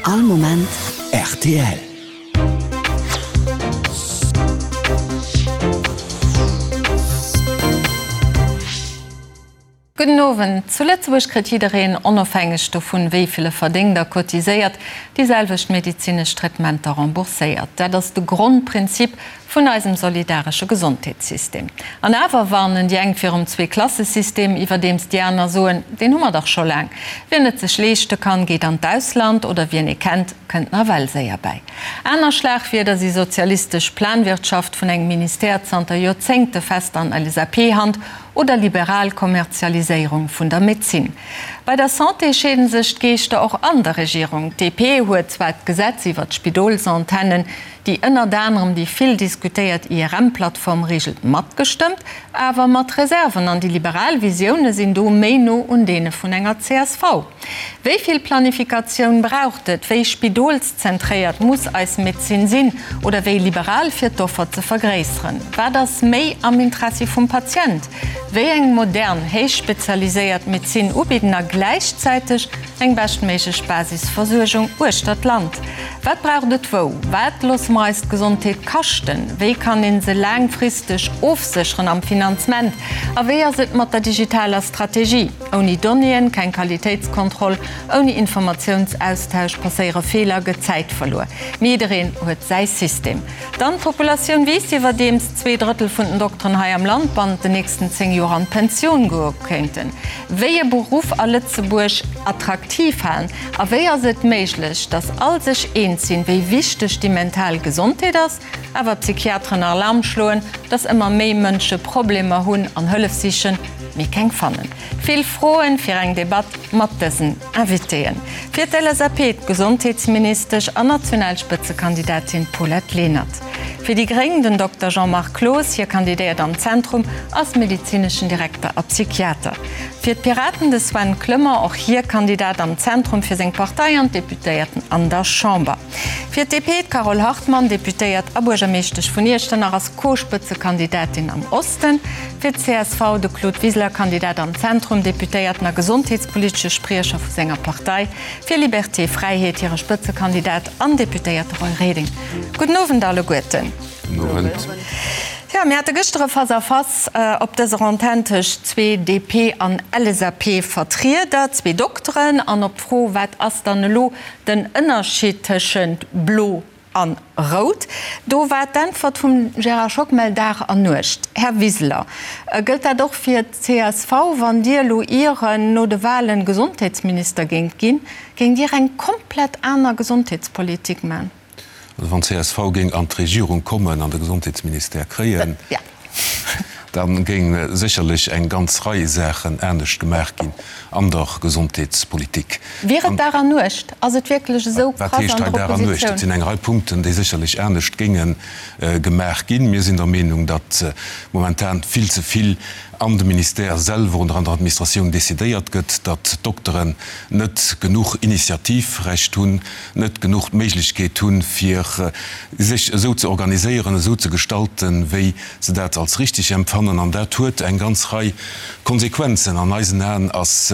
All Moment rtl. Gudden Owend. Zu Lëtzebuerg kritt jiddereen, onofhängeg dovun, wéi vill e verdéngt a cotiséiert, déi selwecht medezinesch Traitementer rembourséiert. Dat ass de Grondprinzip vun eisem solidaresche Gesondheetssystem. An awer warnen déi eng virum Zweeklassesystem, iwwerdeems déi aner soen, deen hu mer dach scho laang. Wien et sech leeschte kann, geet an d'Ausland, oder wien ee kennt, kënnt nawell séier bäi. Aner Schlagwierder si sozialistesch Planwirtschaft vun engem Ministère zanter Joerzéngte fest an LSAP-Hand oder liberal Kommerzialiséierung vun der Medezin. Bei der Santé scheeden sech d'Geeschter och an der Regierung. D'DP huet zwar d'Gesetz iwwer d'Spidolsantennen, déi ënnert anerem déi vill diskutéiert IRM-Plattform reegelt, matgestëmmt, awer mat Reserven, an déi liberal Visioune sinn do méi no un deene vun enger csv. Wéi vill Planifikatioun braucht et? Wéi spidolszentréiert muss eis Medezin sinn oder wéi liberal fir d'Offer ze vergréisseren? Wat ass méi am Interessi vum Patient? Wéi eng modern, héich spezialiséiert Medezin ubidden a gläichzäiteg eng beschtméiglech Basisversuergung uechter d'Land? Wat braucht et wou? Wat loosse mer eis d'Gesondheet kaschten? Wéi kann een se laangfristeg ofsécheren am Finanzement? A wéi ass et mat der digitaler Strategie? Ouni Donnéeën keng Qualitéitskontroll, ouni Informatiounsaustausch passéiere Feeler, gëtt Zäit verluer. Mee jiddereen huet säi System. Dann d'Populatioun wiisst, iwwerdeems 2/3 vun den Dokteren hei am Land bannent den nächsten 10 Joer an d'Pensioun goe kéinten. Wéi e Beruff a Lëtzebuerg attraktiv halen? A wéi ass et méiglech, datt all sech eens sinn, wéi wichteg déi mental Gesondheet ass, awer d'Psychiateren Alarm schloen, datt ëmmer méi Mënsche Problemer hunn an Hëllef sichen, mee keng fannen? Vill Froen fir eng Debatt mat dësen Invitéen. Fir d'LSAP d'Gesondheetsministesch an national Spëtzekandidatin Paulette Lenert. Fir déi Gréng den Dokter Jean-Marc Cloos, hie kandidéiert am Zentrum, ass medezineschen Direkter a Psychiater. Fir d'Piraten de Sven Clement, och hie Kandidat am Zentrum fir seng Partei an d'Deputéierten an der Chamber. Fir d'DP d'Carole Hartmann, Deputéiert a Buergermeeschtesch vun Iechternach, ass Co-Spëtzekandidatin am Osten. Fir d'CSV de Claude Wiseler, Kandidat am Zentrum, Deputéierten a gesondheetspolitesche Spriecher vu senger Partei. Fir Liberté Fräiheet hire Spëtzekandidat an Deputéierte Roy Reding. Gudden Owend alleguerten. Gudden Owend. Jo, mir hate gëschter e Face-à-face op dëser Antenn tëscht zwee DP an LSAP-Vertrieder, zwee Dokteren. An op d'Fro, wat ass dann elo Den Ënnerscheed tëschent blo an rout, do war d'Äntwert vum Gérard Schockmel Dag an Nuecht. Här Wiseler, gëllt dat och fir d'CSV? Wann Dir elo ieren no de Wahlen Gesondheetsminister géingt ginn, géingt Dir eng komplett aner Gesondheetspolitik man? Also wann csv géing an d'Regierung kommen an de Gesondheetsministère kréien, da géing sécherlech eng ganz Rei Saachen anescht gemaach ginn an der Gesondheetspolitik. Wier et Dag an Nuecht? Ass et wierklech esou krass an der Oppositioun? Wat heescht hei Dag an Nuecht? Et sinn eng Rei Punkten, déi sécherlech anescht géinge gemaach ginn. Mir sinn der Meenung, datt momentan vill ze vill an de Ministère selwer oder an der Administratioun decidéiert gëtt, datt d'Dokteren net genuch Initiativrecht hunn, net genuch d'Méiglechkeet hunn, fir sech esou ze organiséieren, esou ze gestalten, wéi se dat als richtig empfannen. An dat huet eng ganz Rei Konsequenzen. An eisen Aen ass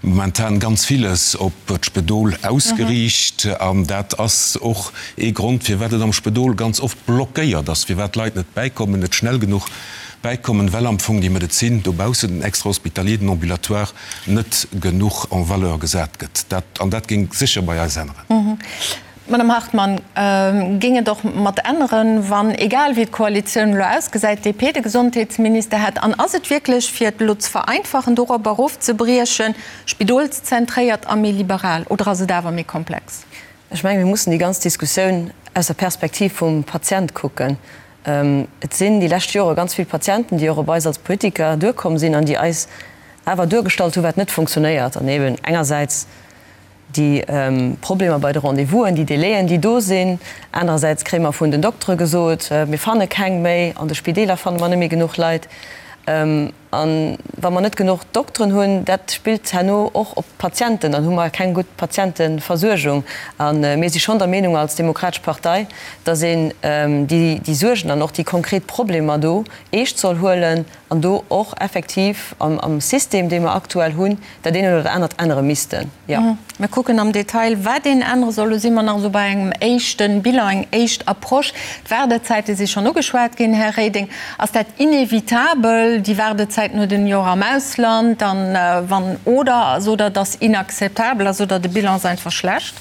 momentan ganz villes op d'Spedol ausgeriicht. An dat ass och ee Grond, firwat et am Spedol ganz oft blockéiert ass, firwat d'Leit net bäikommen, net schnell genuch bäikommen, well am Fong déi Medezin dobaussen, den Extrahospitalier, den Ambulatoire, net genuch en valeur gesat gëtt. Dat, an dat géing sécher bei eis änneren. Madame Hartmann, géing et och mat änneren, wann, egal wéi d'Koalitioun elo ausgesäit, d'DP de Gesondheetsminister hätt? An ass et wierklech, fir et elo ze vereinfachen, dorop erofzebriechen, spidolszentréiert a méi liberal, oder ass et awer méi komplex? Ech mengen, mir mussen déi ganz Diskussioun aus der Perspektiv vum Patient kucken. Et sinn déi lescht Jore ganz vill Patienten, déi och op eis als Politiker duerkomm sinn an déi eis awer duergestallt hu wat net funktionéiert an eben engersäits déi Problemer bei de Rendez-vousen, déi Délaiën, déi do sinn, anerersäits kréie mer vun den Doktere gesot, mir fanne keng méi, an de Spideeler fanne mer net méi genuch Leit. An. A wa mer net genuch Dokteren hunn, dat spillt herno och op d'Patienten, dann hu mer keng gutt Patienteversuergung. A mir si schonn der Meenung als Demokratesch Partei, datt een déi Suergen an och déi konkret Problemer do eescht soll huelen an do och effektiv am System, dee mer aktuell hunn, dat eent oder dat anert ännere missten, jo. Mir kucken am Detail, wat een ännere soll. Lo si mer nach esou bei engem éischte Bilan, eng éischt Approche. D'Waardezäite si schonn ugeschwat ginn, Här Reding. Ass dat inevitabel, déi Waardezäiten huet een jo och am Ausland, dann wann, oder sot Der, et ass inakzeptabel a sot Der, de Bilan ass einfach schlecht?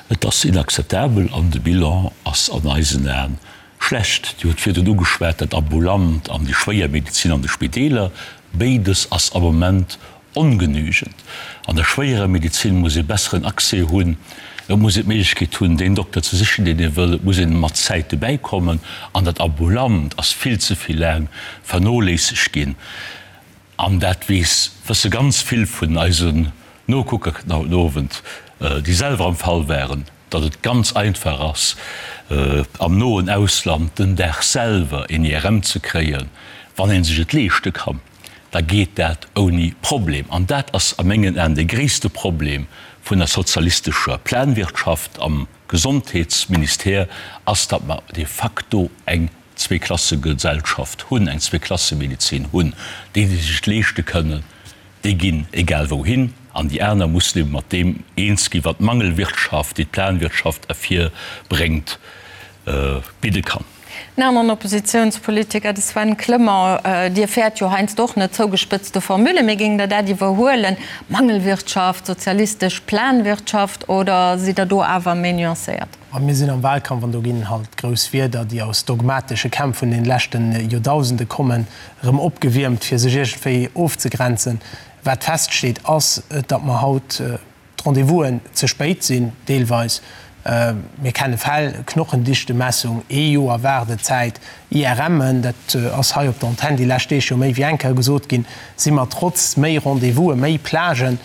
Et ass inakzeptabel an de Bilan ass an eisen Aen schlecht. Dir hutt virdrun ugeschwat, dat Ambulant an déi schwéier Medezin an de Spideeler. Béides ass am Moment Ongenügend. An der schwéierer Medezin muss ee besseren Accès hunn. Et muss een d'Méiglechkeet hunn, deen Dokter ze sichen, deen ee wëll. Et muss een mat Zäit dobäi kommen. An dat Ambulant ass vill ze vill laang vernoléissegt ginn. An dat weess, wësse ganz vill vun eisen Nokucker haut den Owend, déi selwer am Fall waren, datt et ganz einfach ass, am noen Ausland den Dag selwer een IRM ze kréien, wann ee sech et leeschte kann. da geet dat ouni Problem. An dat ass a mengen Aen de gréisste Problem vun der sozialistescher Planwirtschaft am Gesondheetsministère, ass, datt mer de facto eng Zweeklassegesellschaft hunn, eng Zweeklassemedezin hunn. Déi, déi sech et leeschte kënnen, déi ginn egal wouhin, an déi aner mussen ebe mat deem eens ginn, wat d'Mangelwirtschaft, déi d'Planwirtschaft ervirbréngt, bidde kann. En aneren Oppositiounspolitiker, de Sven Clement, Dir fäert jo heiansdo och net zougespëtzte Formule, mee géingt Der dat iwwerhuelen, Mangelwirtschaft, sozialistesch Planwirtschaft, oder sidd Der do awer méi nuancéiert? A mir sinn am Wahlkampf an do ginn halt grouss Wierder, déi aus dogmatesche Kämpf vun den leschte Joerdausende kommen, erëm opgewiermt, fir sech iergendwéi ofzegrenzen. Wat feststeet, ass, datt mer haut d'Rendez-vousen ze spéit sinn, deelweis. Mir kenne Fäll, Knochendichtemessung, ee Joer Waardezäit, IRMen, dat ass hei op der Antenn déi lescht Deeg jo méi wéi eng Kéier gesot ginn, si mer trotz méi Rendez-vousen, méi Plagen,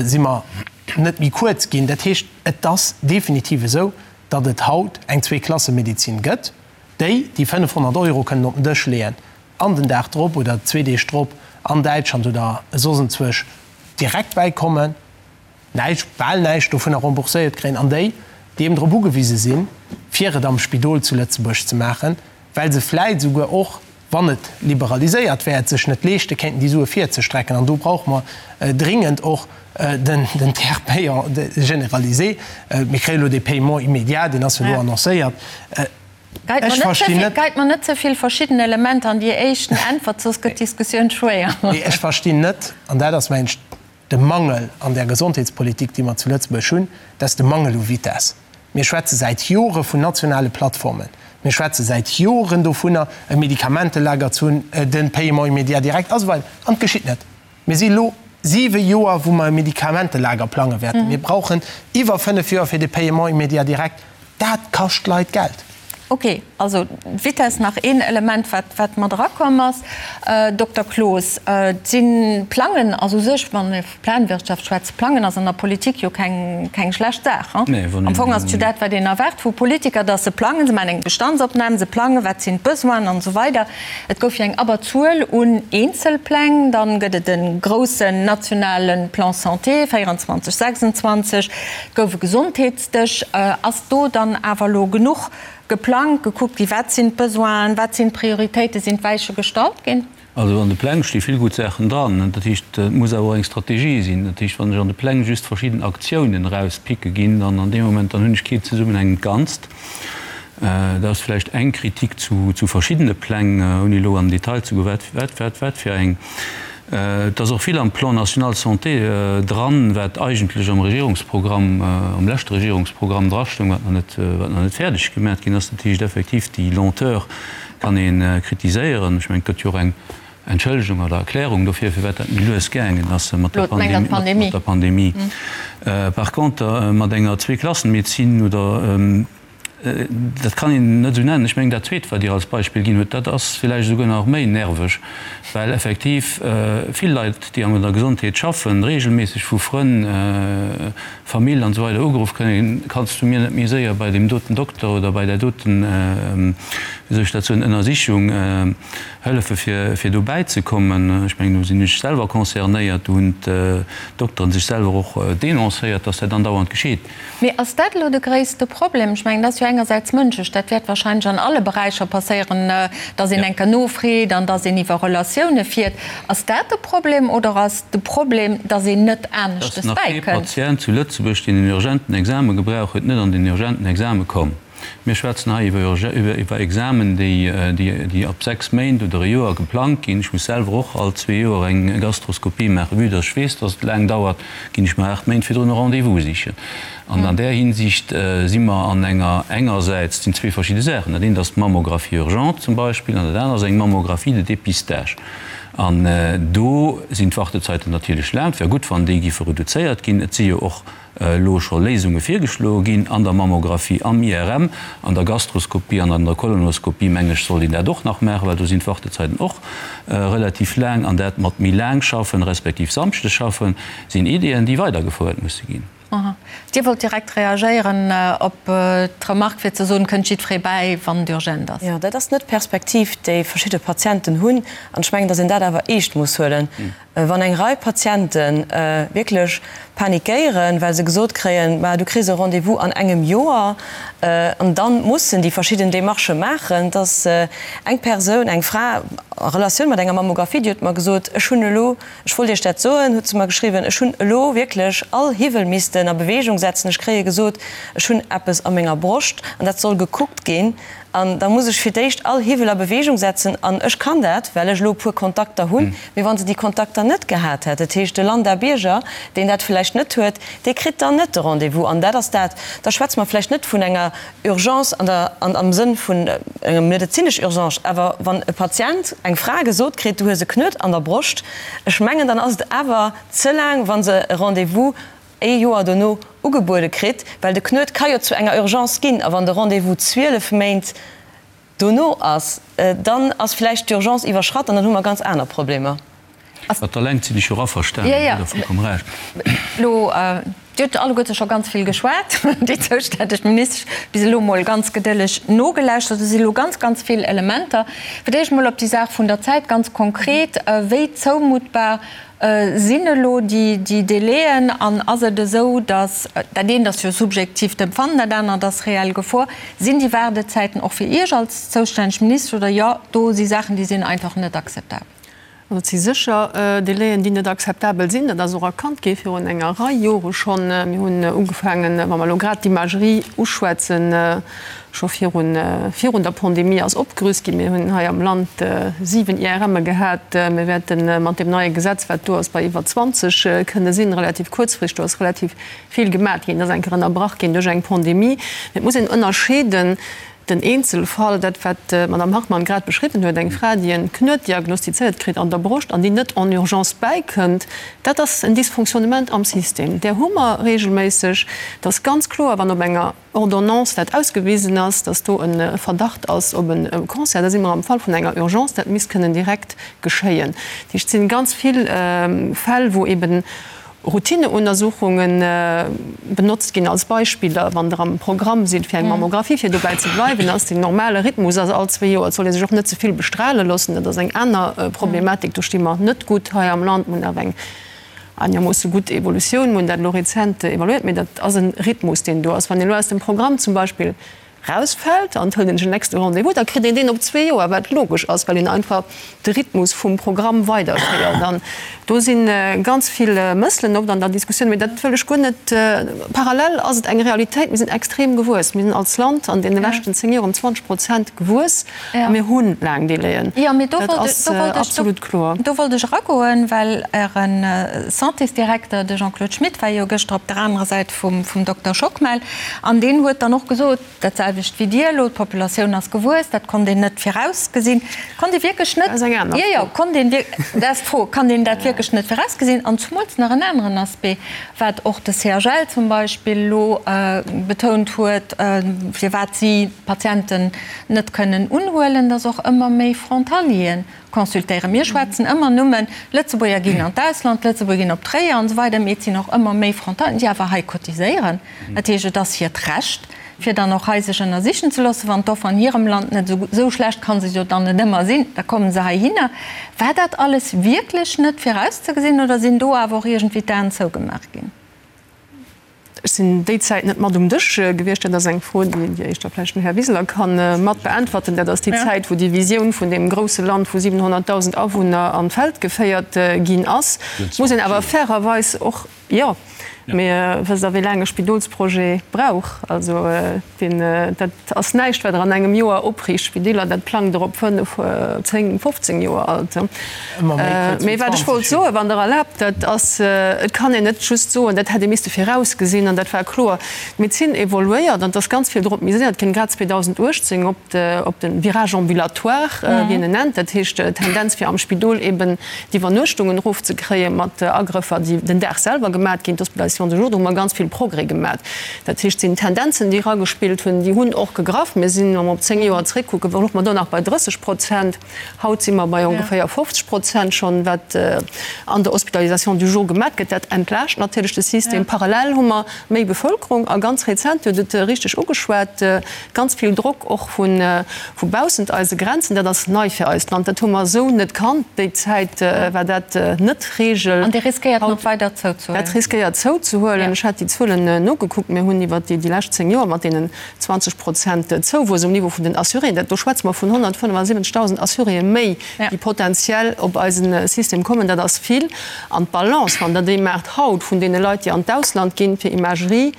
si mer net méi kuerz ginn. Dat heescht, et ass definitiv esou, datt et haut eng Zweeklassemedezin gëtt, déi, déi 500 Euro kënnen op den Dësch leeën an den Dag drop oder zwee Deeg drop an Däitschland oder soss enzwousch direkt bäikommen, näischt, bal näischt dovunner rembourséiert kréien, an déi, déi eben drop ugewise sinn, fir et am Spidol zu Lëtzebuerg ze maachen, well se vläit esouguer och, wann et liberaliséiert wär, et sech net leeschte kéinten, déi Sue virzestrecken. An do brauche mer dringend och den Tiers payant généralisé. Mir kréie elo dee Paiement immédiat, deen ass jo elo annoncéiert. Ech verstinn net. Geit mer net ze vill verschidden Elementer an déi éischten Äntwert, soss gëtt d'Diskussioun schwéier. Nee, ech verstinn net, an dat ass, mengen ech, de Mangel an där Gesondheetspolitik, déi mer zu Lëtzebuerg hunn, dat ass de Mangel u Vitesse. Mir schwätze säit Jore vun nationale Plattformen. Mir schwätze säit Joren dovunner, e Medikamentelager ze hunn, de Paiement immédiat direct a sou weider. An et geschitt net. Mir si elo siwe Joer, wou mer e Medikamentelager plange wäerten. Mir brauchen iwwer fënnef Joer fir de Paiement immédiat direct. Dat kascht d'Leit Geld. Ok, also d'Vitess nach een Element, wat, wat mat erakomm ass. Dokter Cloos, et si Plangen ass u sech, wann ee vu Planwirtschaft schwätzt, Plangen ass an der Politik jo keng, keng schlecht Saach. Am Fong ass et jo dat, wat een erwaart vu Politiker, datt se plangen, se maachen eng Bestandsopnam, se plangen, wat sinn d'Besoinen an esou weider. Et gouf jo eng Abberzuel un Eenzelpläng, dann gëtt et e groussen nationale Plan santé 24, 26, et gouf e Gesondheets. Dech. Ass do dann awer elo genuch geplangt, gekuckt gi wat sinn d'Besoinen, wat sinn d'Prioritéiten, sinn d'Weiche gestallt ginn? Also an de Pläng sti vill gutt Saachen dran. Dat heescht, et muss awer och eng Strategie sinn. Dat heescht, wann ech an de Pläng just verschidden Aktiounen erauspicke ginn, dann an deem Moment, dann hunn ech kee zesummenhängend Ganzt. Dat ass vläicht eng Kritik zu verschiddene Pläng, ouni elo an den Detail ze goen, wat, wat, wat, wat fir eng. Et ass och vill am Plan national santé dran, wat eigentlech am Regierungsprogramm, am leschte Regierungsprogramm drastoung, wat nach net, wat nach net fäerdeg gemat ginn ass. Dat heescht effektiv, déi Lenteur kann ee kritiséieren. Ech mengen, et gëtt jo och eng Entschëllegung oder Erklärung dofir, firwat dat méi lues gaangen ass mat der Pandemie. Par contre, mat enger Zweeklassenmedezin oder. Dat kann een net esou nennen. Ech mengen, dat Zweet, wat Dir als Beispill ginn hutt, dat ass villäicht esouguer nach méi nerveg, well effektiv vill Leit, déi an der Gesondheet schaffen, regelméisseg vu Frënn, Famill an esou weider ugeruff kënnen, Kanns du mir net méi séier bei deem doten Dokter oder bei där doten, wéi soll ech dat soen, Ënnersichung hëllefe fir, fir dobäi ze kommen? Ech mengen, do sinn ech selwer concernéiert, do hunn d'Dokteren sech selwer och denoncéiert, dass dat andauernd geschitt. Mee ass dat elo de gréisste Problem? Ech mengen, dat ass jo engersäits mënschlech, dat wäert wahrscheinlech an alle Beräicher passéieren, datt een eng Kéier nofreet an datt een iwwer Relatioune fiert. Ass dat de Problem oder ass de Problem, datt een net aneschtes Et ass nach kee bäikënnt? Patient zu Lëtzebuerg, deen en urgenten Exame gebrauch huet, net an den urgenten Exame komm. Mir schwätzen hei iwwer Examen, déi ab 6 Méint oder e Joer geplangt ginn. Ech muss selwer och all zwee Joer eng Gastroskopie maachen. Vue dass ech weess, dass et laang dauert, ginn ech mer 8 Méint virdrun e Rendez-vous sichen. An an där Hinsicht si mer an enger, engersäits, et sinn zwee verschidde Saachen, dat eent ass d'Mammographie urgente zum Beispill an dat anert ass eng Mammographie de dépistage. An do sinn d'Wartezeiten natierlech laang. Et wär gutt, wann déi giffe reduzéiert ginn. Et si jo och elo scho Léisunge virgeschloe ginn an der Mammographie, am IRM, an der Gastroskopie an an der Kolonoskopie, meng ech, sollt een dat och nach maachen, well do sinn d'Wartezeiten och relativ laang. An dat mat méi laang schaffen, respektiv Samschdes schaffen, sinn Ideeën, déi weidergefouert musse ginn. Dir wollt direkt reagéieren op d'Remark, fir ze soen, kënnt jiddweree bäi, wann et urgent ass. Jo, dat ass net d'Perspektiv, déi verschidde Patienten hunn. An ech mengen, datt een dat awer eescht muss huelen. Wann eng Rei Patiente wierklech panikéieren, well se gesot kréien, Ma du kriss e Rendez-vous an engem Joer, an da mussen déi verschidden Demarchë maachen, dass eng Persoun, eng Fra a Relatioun mat enger Mammographie, déi huet mer gesot, Ech hunn elo, ech wollt Iech dat soen, huet se mer geschriwwen, ech hunn elo wierklech all Hiwwel missten a Beweegung setzen, ech kréie gesot, ech hunn eppes a menger Broscht an dat soll gekuckt ginn. An da muss ech fir d'éischt all Hiwwel a Beweegung setzen. An ech kann dat, well ech elo e puer Kontakter hunn. Mee wa se déi Kontakter net gehat hätt, dat heescht de Lambda-Bierger, deen dat vläicht net huet, dee kritt dann net de Rendez-vous. An dat ass dat, da schwätze mer vläicht net vun enger Urgence an der, an am Sënn vun enger medezinesch Urgence, awer wann e Patient, eng Fra gesot kritt, du hues e Knuet an der Broscht, ech mengen, dann ass et awer ze laang, wa se e Rendez-vous ee Joer dono ugebuede kritt, well de Knuet ka jo zu enger Urgence ginn, a wann de Rendez-vous 12 Méint dono ass, dann ass vläicht d'Urgence iwwerschratt an dann hu mer ganz aner Problemer. Mat der Längt sinn ech jo och averstanen, hutt Der vollkomm Recht. Elo, Dir hutt alleguerte scho ganz vill geschwat, déi zoustänneg Ministesch bis elo mol ganz gedëlleg nogelauschtert. Et si elo ganz, ganz vill Elementer. Fir d'éischt mol op déi Saach vun der Zäit ganz konkret, Wéi zoumuttbar Sinn elo déi Délaiën an ass et esou, datt, dat eent ass jo subjektiivt Empfannen, dat anert ass reell Gefor, sinn déi Waardezäiten och fir Iech als zoustänneg Ministesch oder jo, do si Saachen, déi sinn einfach net akzeptabel? Also et si sécher Délaiën, déi net akzeptabel sinn. Dat ass och erkannt gi virun enger Rei Jore schonn. Mir hunn ugefaangen, wa mer elo grad d'Imagerie uschwätzen, Scho virun virun der Pandemie ass opgerüst ginn. Mir hunn hei am Land 7 IRMe gehat. Mir wäerte mat deem neie Gesetz, wat do ass, bei iwwer 20 kënne sinn, relativ kuerzfristeg. Do ass relativ vill gemat ginn. Et ass eng Kéier ënnerbrach ginn duerch eng Pandemie. Mee et muss een ënnerscheeden, den Eenzelfall, dat wat d'Madame Hartmann grad beschriwwen huet, eng Fra, déi en Knuet diagnostizéiert kritt an der Broscht an déi net en urgence bäikënnt, dat ass en Dysfonctionnement am System. Där hu mer regelméisseg. Et ass ganz kloer, wann op enger Ordonnance dat ausgewisen ass, dass do e Verdacht ass op e Cancer, da si mer am Fall vun enger Urgence, dat misst kënnen direkt geschéien. Dat heescht, et si ganz vill Fäll, wou eben Routineuntersuchunge benotzt ginn als Beispiller, wann Der am Programm sidd fir eng Mammographie, fir dobäi ze bleiwen, ass den normale Rhythmus ass all zwee Joer. Et soll ee sech och net ze vill bestrale loossen, dat ass eng aner Problematik. Do sti mer net gutt hei am Land. Mir hunn awer eng Einermoosse gutt Evolutioun, mir hunn dat elo rezent evaluéiert, mee dat ass e Rhythmus, deen do ass. Wann een elo aus dem Programm zum Beispill rausfält an et hëlt een sech en nächste Rendez-vous, da kritt een deen op zwee Joer, wat logesch ass, well een einfach de Rhythmus vum Programm weiderféiert. An do si ganz vill Mësselen oft an der Diskussioun, mee dat wëll ech guer net. Parallel ass et eng Realitéit, mir sinn extrem gewuess. Mir sinn als Land an deene leschten zéng Joer ëm 20 Prozent gewuess. A mir hu laang Délaiën. Dat ass absolut kloer. Do wollt ech eragoen, well Äre Santésdirekter, de Jean-Claude Schmit, war jo gëschter op der anerer Säit vum Dokter Schockmel an deen huet dann och gesot, dat selwecht. selwecht wéi Dir elo, d'Populatioun ass gewuess, dat konnt een net virausgesinn. Konnt ee wierklech net, jo, jo, konnt een wierk, dat ass d'Fro, kann een dat wierklech net virausgesinn? An zumools nach en aneren Aspect, wat och de CHL zum Beispill elo betount huet, firwat si d'Patienten net kënnen unhuelen, dass och ëmmer méi Frontalieren consultéieren. Mir schwätzen ëmmer nëmmen, Lëtzebuerger ginn an d'Ausland, Lëtzebuerger ginn op Tréier an esou weider, mee et sinn och ëmmer méi Frontalieren, déi awer hei cotiséieren. Dat heescht, et ass hiert Recht, fir dann och hei sech ënnersichen ze loossen. Wann d'Offer an hirem Land net esou, esou schlecht ka se jo dann net ëmmer sinn, da komme se heihinner. War dat alles wierklech net virauszegesinn oder sinn do awer och iergendwéi d'Aen zougemaach ginn? Ech sinn déi Zäit net mat um Dësch gewiescht. Dat ass eng Fro, déi déi éischter vläicht den Här Wiseler ka mat beäntwerten. Dat ass déi Zäit, wou déi Visioun vun deem grousse Land vu 700.000 Awunner an d'Feld geféiert ginn ass. Muss een awer fairerweis och, jo, mee wësst Der, wéi laang e Spidolsprojet brauch? Also deen, dat ass näischt, wat Der an engem Joer opriicht. Spideeler, dat plangt Der op fënnef, zéng, 15 Joer alt. Mee wat ech wollt soen, wann Der erlaabt, dat ass, et kann een net just soen, dat hätt ee misste virausgesinn an dat war kloer. D'Medezin evoluéiert an et ass ganz vill drop miséiert ginn, grad 2018 op de, op de Virage ambulatoire, wéi een en nennt, dat heescht d'Tendenz fir am Spidol eben d'Iwwernuechtungen erofzekréie mat Agrëffer, déi den Dag selwer gemat ginn, d'Hospitalisation de jour, do hu mer ganz vill Progrès gemat. Dat heescht, et sinn Tendenzen, déi eragespillt hunn, déi hunn och gegraff. Mir sinn, wa mer op 10 Joer zréckkucken, louche mer do nach bei 30 Prozent. Haut si mer bei ongeféier 50 Prozent schonn, wat an der Hospitalisation du jour gemat gëtt. Dat entlaascht natierlech de System. Parallel hu mer méi Bevëlkerung a ganz rezent, Dir hutt et richteg ugeschwat, ganz vill Drock och vu baussent eise Grenzen. Dat ass nei fir eist Land. Dat hu mer esou net kannt. Déi Zäit war dat net d'Regel. An dee riskéiert nach weider zouzehuelen. Dat riskéiert zouzehuelen. Ech hat déi Zuelen nogekuckt. Mir hunn iwwer déi lescht 10 Joer mat deenen 20 Prozent Zouwuess um Niveau vun den Assuréen, dat do schwätze mer vun 175.000 Assuréë méi, déi potenziell op eise System kommen. Dat ass vill. An d'Balance, wann Der déi maacht haut vun deene Leit, déi an d'Ausland ginn fir Imagerie,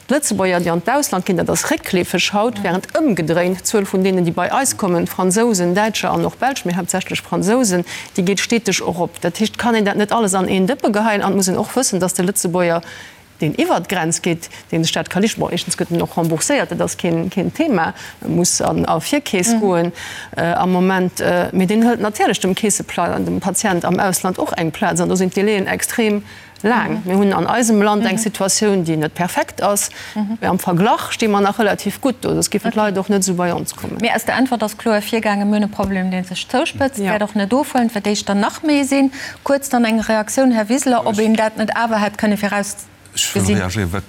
d'Lëtzebuerger, déi an d'Ausland ginn, dat ass réckleefeg haut, während ëmgedréint d'Zuel vun deenen, déi bei eis kommen, Fransousen, Däitscher an och Belsch, mee haaptsächlech Fransousen, déi geet steteg erop. Dat heescht, et kann een dat net alles an een Dëppe geheien an et muss een och wëssen, dass de Lëtzebuerger, deen iwwert d'Grenz geet, dee sech dat ka leeschten, bon, éischtens gëtt en och rembourséiert, dat ass keen, keen Thema, e muss an a Virkeess goen am Moment, mee deen hëlt natierlech dem Keessepla, dem Patient am Ausland och eng Plaz an do sinn d'Délaiën extrem laang. Mir hunn an eisem Land eng Situatioun, déi net perfekt ass, mee am Verglach sti mer nach relativ gutt do, soss géifen d'Leit och net esou bei ons kommen. Mee aus der Äntwert ass kloer ervirgaangen, Mir hunn e Problem, dee sech zouspëtzt, wäert och net ofhuelen, et wäert éischter nach méi sinn. Kuerz dann eng Reaktioun, Här Wiseler, ob een dat net awer hätt kënne virausgesinn. Ech wëll reagéieren. Wat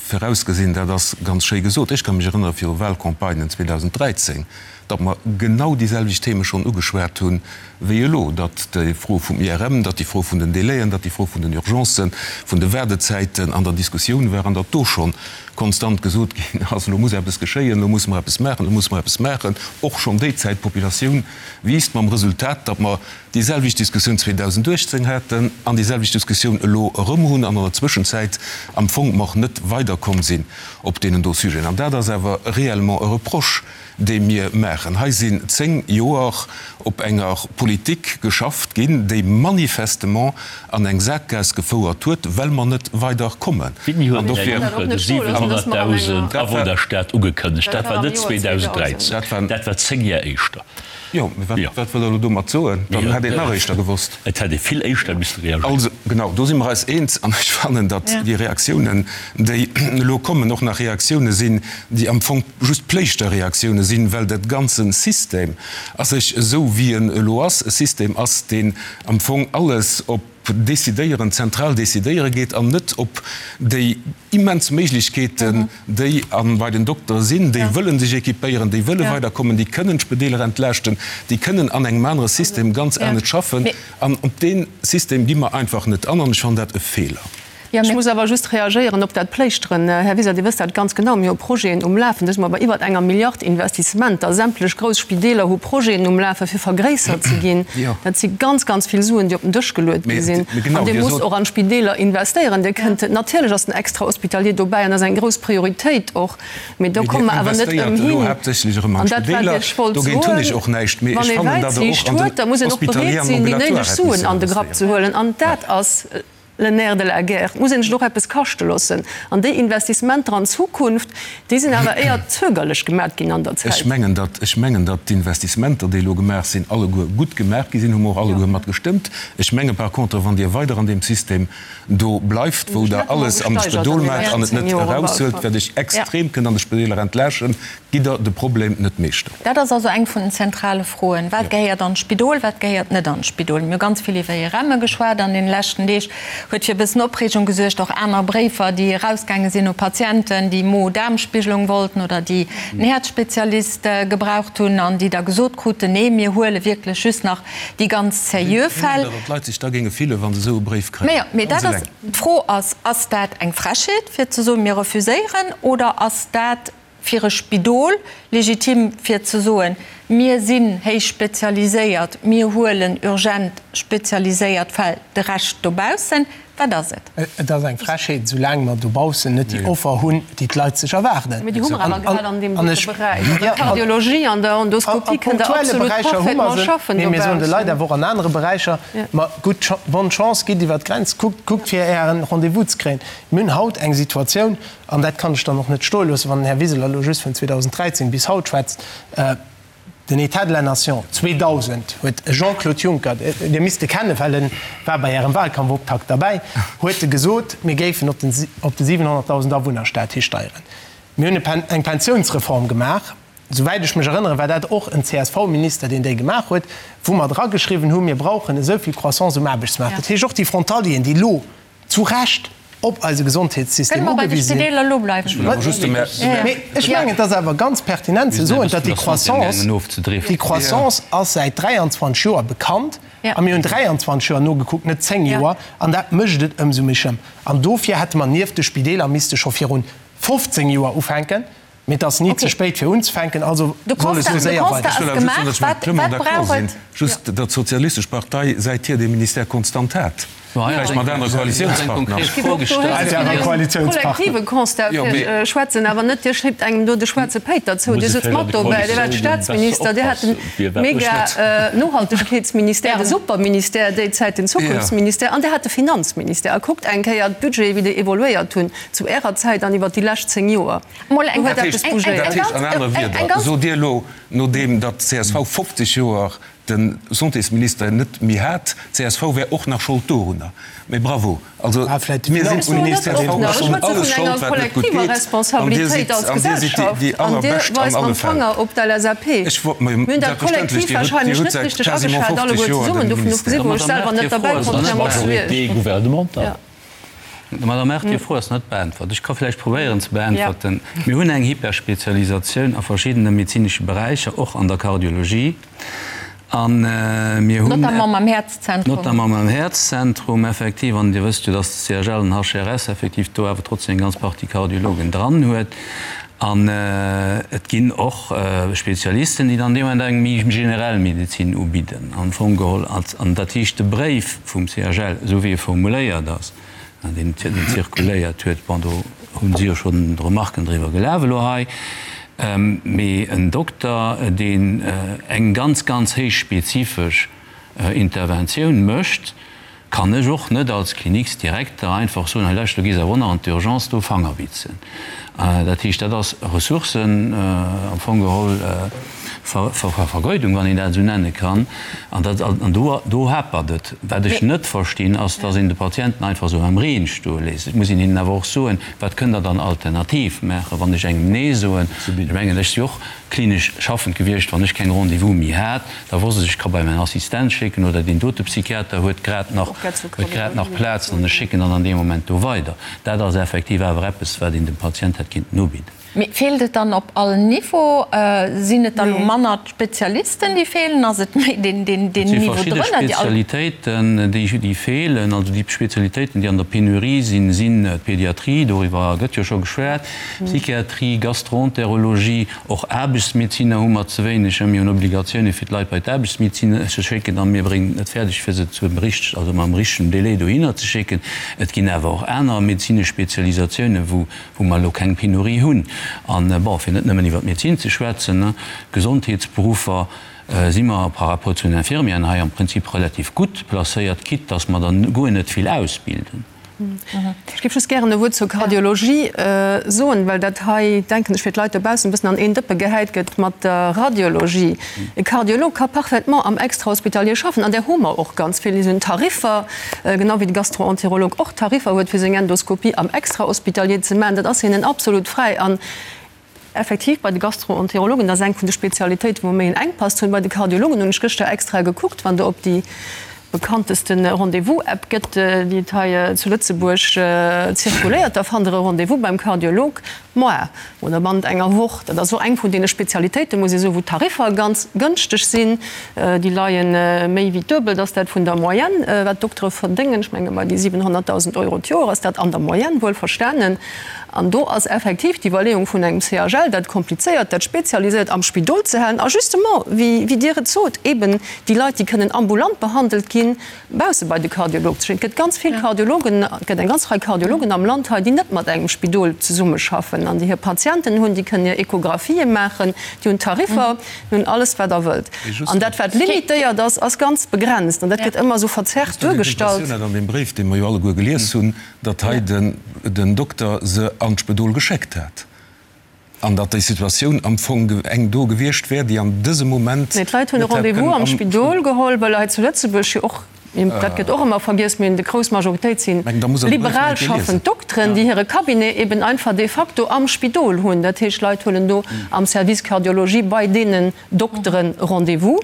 virausgesinn, dat ass ganz schéi gesot. Ech ka mech erënnere viru Wahlcampagnen 2013, datt mer genau déi selwecht Theme schonn ugeschwat hunn wéi elo, datt déi Fro vum IRM, datt déi Fro vun den Délaiën, datt déi Fro vun den Urgencen, vun de Waardezäiten an der Diskussioun war an datt do schonn konstant gesot ginn ass, elo muss eppes geschéien, elo musse mer eppes maachen, elo musse mer eppes maachen. Och schonn déi Zäit, d'Populatioun wiisst, mam Resultat, datt mer déi selwecht Diskussioun 2018 haten an déi selwecht Diskussioun elo erëm hunn an an der Zwëschenzäit am Fong mer net weiderkomm sinn op deenen do Sujeten. An dat ass awer réellement e Reproche, dee mir maachen. Hei sinn 10 Joer op enger Politik geschafft ginn, déi manifestement an eng Saakgaass gefouert huet, well mer net weiderkommen. Wéini huet den Här Juncker de 700.000 Awunnerstaat ugekënnegt? Dat war net 2013, dat war 10 Jar éischter. Jo, mee wat, wat wëllt Der elo domat soen? Dann hätt een et nach éischter gewosst. Et hätt ee vill éischter misste reagéieren. Also, genau, do si mer eis eens. An ech fannen, datt déi Reaktiounen, déi elo kommen, och nach Reaktioune sinn, déi am Fong just Pléischterreaktioune sinn, well dat ganze System a sech, esou wéi en elo ass, e System ass, deen am Fong alles op Décidéieren, zentral décidéiere geet an net op déi immens Méiglechkeeten, déi a bei den Doktere sinn, déi wëlle sech équipéieren, déi wëlle weiderkommen, déi kënnen d'Spedeeler entlaaschten, déi kënnen an engem anere System ganz anescht schaffen. An op dee System gi mer einfach net an an ech fannen dat e Feeler. Ech muss awer just reagéieren op dat Pléischteren. Här Wiseler, Dir wësst dat ganz genau, mir hu Projeten um Lafen, do si mer bei iwwert enger Milliard Investissementer. Sämtlech grouss Spideeler hu Projeten um Lafen, fir vergréissert ze ginn. Dat si ganz, ganz vill Suen, déi op den Dësch geluet gi sinn. An Dir musst och an d'Spideeler investéieren. Dir kënnt, natierlech ass den Extrahospitalier dobäi an ass eng grouss Prioritéit och, mee do komme mer awer net ëmhin. An dat, wat ech wollt soen, Wann ee Wäitsiicht huet, da muss een och bereet sinn, déi néideg Suen an de Grapp ze huelen. An dat ass. Le nerf de la guerre. Et muss een sech och eppes kaschte loossen. An déi Investissementer an d'Zukunft, déi sinn awer éier zögerlech gemat ginn an der Zäit. Ech mengen, datt, ech mengen, datt d'Investissementer, déi elo gemaach sinn, alleguer gutt gemaach gi sinn, hu mer och alleguer mat gestëmmt. Ech menge par contre, wann Dir weider an deem System do bleift, wou Der alles an de Spedol maacht an et net eraushuelt, wat Iech extrem kënnt an de Spedeeler entlaaschten, gitt Der de Problem net meeschter. Dat ass also eng vun den zentrale Froen, Wat gehéiert an d'Spidol, wat gehéiert net an d'Spidol? Mir hu ganz vill iwwer IRMe geschwat an deene leschten Deeg, huet fir e bëssen Opreegung gesuergt, och aner Bréifer, déi erausgaange sinn u Patienten, déi Mo-Daarm-Spigelung wollten oder déi en Häerzspezialist gebraucht hunn an déi da gesot kruten, Nee, mir huele wierklech just nach déi ganz seriö Fäll. Wéi datt d'Leit sech da géinge fillen, wa se esou e Bréif kréien. Mee dat ass, d'Fro ass, Ass dat eng Frechheet, fir ze soen, mir refuséieren, oder ass dat fir e Spidol legitim fir ze soen, mir sinn héich spezialiséiert, mir huelen urgent spezialiséiert Fäll, de Rescht dobaussen? Wat ass et? Et ass eng Frechheet, esoulaang mer dobaussen net déi Offer hunn, déi d'Leit sech erwaarden. Mee déi hu mer awer grad an deem dote Beräich, an der Kardiologie, an der Endoskopie kënnt Der absolut parfaitement schaffen dobaussen. Mee mir soen de Leit awer och an anere Beräicher, ma gutt, bonne chance, gitt iwwer d'Grenz, kuckt, kuckt fir Ären Rendez-vous ze kréien. Mir hunn haut eng Situatioun, An dat kann ech dann och net stoe loossen, wann den Här Wiseler elo just vun 2013 bis haut schwätzt. Den État de la Nation 2000 huet e Jean-Claude Juncker, Dir misst e kennen, well e war bei Ärem Wahlkampfoptakt derbäi, huet e gesot, mir géifen op de 700.000 Awunnerstaat histeieren. Mir hunn eng Pensiounsreform gemaach, souwäit ech mech erënneren, war dat och en CSV-Minister, deen déi gemaach huet, wou mer drageschriwwen hu mir brauchen esou vill Croissance um Aarbechtsmaart. Dat heescht, och déi Frontalieren, déi elo zu Recht op eise Gesondheetssystem Kënne mer bei de ugewise sinn. Spideeler elo bleiwen? Mee ech mengen, et ass awer ganz pertinent ze soen, datt déi Croissance, déi Croissance ass säit 23 Joer bekannt a mir hunn 23 Joer nogekuckt, net 10 Joer, an dat mécht et ëmsou méi schlëmm. An dofir hätte mer nieft de Spideeler misste scho virun 15 Joer ufänken. Mee et ass ni ze spéit fir unzefänken, also soll et esou séier weider. Ech wëll awer just soen, datt ech mam Clement d'accord sinn, just datt d'Sozialistesch Partei säithier dee Ministère konstant hat, vläicht mat anere Koalitiounspartner. Kollektive Constat fir schwätzen, awer net Dir schléipt engem do de schwaarze Péiter zou. Dir sutzt mat dobäi, Dir waart Staatsminister, Dir hat den mega Nohaltegkeetsministère, de Superministère déi Zäit, den Zukunftsministère an Dir hat de Finanzministère. A kuckt eng Kéier d'Budgete wéi déi evoluéiert hunn zu Ärer Zäit an iwwert déi lescht 10 Joer. Mol eng Dat heescht, dat heescht an anere Wieder, sot Dir elo, nodeem datt d'CSV 50 Joer de Santésminister net méi hat, d'CSV wär och nach Schold dorunner. Mee bravo! Also mir sinn un d'CSV ass un alles Schold, wat net gutt geet, an Dir sidd, an Dir sidd déi, déi allerbescht an alle Fäll. Ech wor, mä selbstverständlech, Dir hutt, Dir hutt säit quasiment 50 Joer de Ministère. Madame Err, Dir Fro ass net beäntwert. Ech ka vläicht probéieren ze beäntwerten. Mir hunn eng Hyperspezialisatioun a verschiddene medezinesche Beräicher, och an der Kardiologie. A mir hunn. Notamment mam Häerzzentrum. Notamment mam Häerzzentrum, effektiv. An Dir wësst jo, dass de CHL an HRS effektiv do awer trotzdem eng ganz Partie Kardiologen dran huet. An et ginn och Spezialisten, déi dann dee Moment eng méi generell Medezin ubidden, am Fong geholl. An dat heescht, de Bréif vum CHL, esou wéi e formuléiert ass, deen zirkuléiert huet, bon, do hu si jo schonn Remarken driwwer gelaf elo hei, mee en Dokter, deen eng ganz, ganz héich spezifesch Interventioun mécht, kann ech och net als Kliniksdirekter einfach soen, hei lauscht, du gees awer och nach an d'Urgence do Fanger bitzen. Dat heescht, dat ass Ressourcen am Fong geholl Vergeudung, wann een dat esou nenne kann. An dat, an do, do hapert et. Wat ech net verstinn, ass, dass een de Patienten einfach esou am Reen stoe léisst. Et muss een hinnen awer och soen, wat kënnt Der dann alternativ maachen, wann ech engem Nee soen. Ech mengen, ech si och klinesch schaffend gewiescht, wann ech keng Rendez-vous méi hat, Da wosst ech, ech ka bei mäin Assistent schécken oder deen dote Psychiater huet grad nach, huet grad nach Plaz an ech schécken dann an deem Moment do weider. Dat ass effektiv awer eppes, wat een dem Patient hätt kinnten ubidden. Mee feelt et dann op all Niveau? Sinn et da lo manner d'Spezialisten, déi feelen? Ass et méi deen, deen, deen Niveau drënner, déi all. Et si verschidde Spezialitéiten, déi, déi feelen. Also déi Spezialitéiten, déi an der Penurie sinn, sinn d'Pédiatrie, doriwwer gëtt jo scho geschwat, Psychiatrie, Gastroenterologie, Och Aarbechtsmedeziner hu mer ze wéineg. Mir hunn Obligatioune fir d'Leit bei d'Aarbechtsmedezin ze schécken a mir bréngen et net fäerdeg fir se zum richteg, also mam richtegen Délai dohinner ze schécken. Et ginn awer och aner medezinesch Spezialisatiounen, wou wou mer elo keng Penurie hunn. An, bon, fir net nëmmen iwwer d'Medezin ze schwätzen, d'Gesondheetsberuffer si mer par rapport zu den Infirmieren hei am Prinzip relativ gutt placéiert, quitte dass mer der guer net vill ausbilden. Ech géif just gären e Wuert zur Kardiologie soen, well dat hei, denken ech, fir d'Leit dobaussen e bëssen an een Dëppe gehäit gëtt mat der Radiologie. E Kardiolog ka parfaitement am Extrahospitalier schaffen, an där hu mer och ganz vill. Déi hunn Tariffer, genau wéi de Gastroenterolog och Tariffer huet, fir seng Endoskopie am Extrahospitalier ze maachen. Dat ass hinnen absolut fräi. An Effektiv, bei de Gastroenterologen, dat ass eng vun de Spezialitéiten, wou mer méi en Enkpass hunn. Bei de Kardiologen hunn ech gëschter extra gekuckt, wann Der op déi bekannteste Rendez-vous-App gëtt, déi et hei zu Lëtzebuerg zirkuléiert, da fannt Der e Rendez-vous beim Kardiolog moar oder bannent enger Woch. Dat ass och eng vun deene Spezialitéiten, muss ee soen, wou d'Tariffer ganz gënschteg sinn. Déi leie méi wéi d'Duebelt ass dat vun der Moyenne, wat d'Doktere verdéngen. Ech menge bei déi 700.000 Euro d'Joer ass dat an der Moyenne, wuelverstanen. An do ass effektiv d'Iwwerleeung vun engem CHL, dat komplizéiert, dat spezialiséiert am Spidol ze halen a justement, wéi Dir et sot, eben déi Leit, déi kënnen ambulant behandelt ginn, bausse bei de Kardiolog ze schécken. Et gëtt ganz vill Kardiologen, et gëtt eng ganz Rei Kardiologen am Land hei, déi net mat engem Spidol zesummeschaffen an déi hir Patienten hunn, déi kënnen hir Echographië maachen, déi hunn Tariffer, déi hunn alles, wat Der wëllt. An dat, wat limitéiert ass, ass ganz begrenzt an dat gëtt ëmmer esou verzerrt duergestallt. An deem Bréif, dee mer jo alleguer gelies hunn, datt hei den Dokter se an d'Spëdol geschéckt hat an datt déi Situatioun am Fong eng do gewiescht wär, déi an dësem Moment Nee, d'Leit hunn e Rendez-vous am Spidol geholl, well hei zu Lëtzebuerg jo och, dat gëtt och ëmmer vergiess, mee déi grouss Majoritéit si liberal schaffend Dokteren, déi hire Cabinet eben einfach de facto am Spidol hunn. Dat heescht, d'Leit huelen do am Service Cardiologie bei deenen Dokteren Rendez-vous.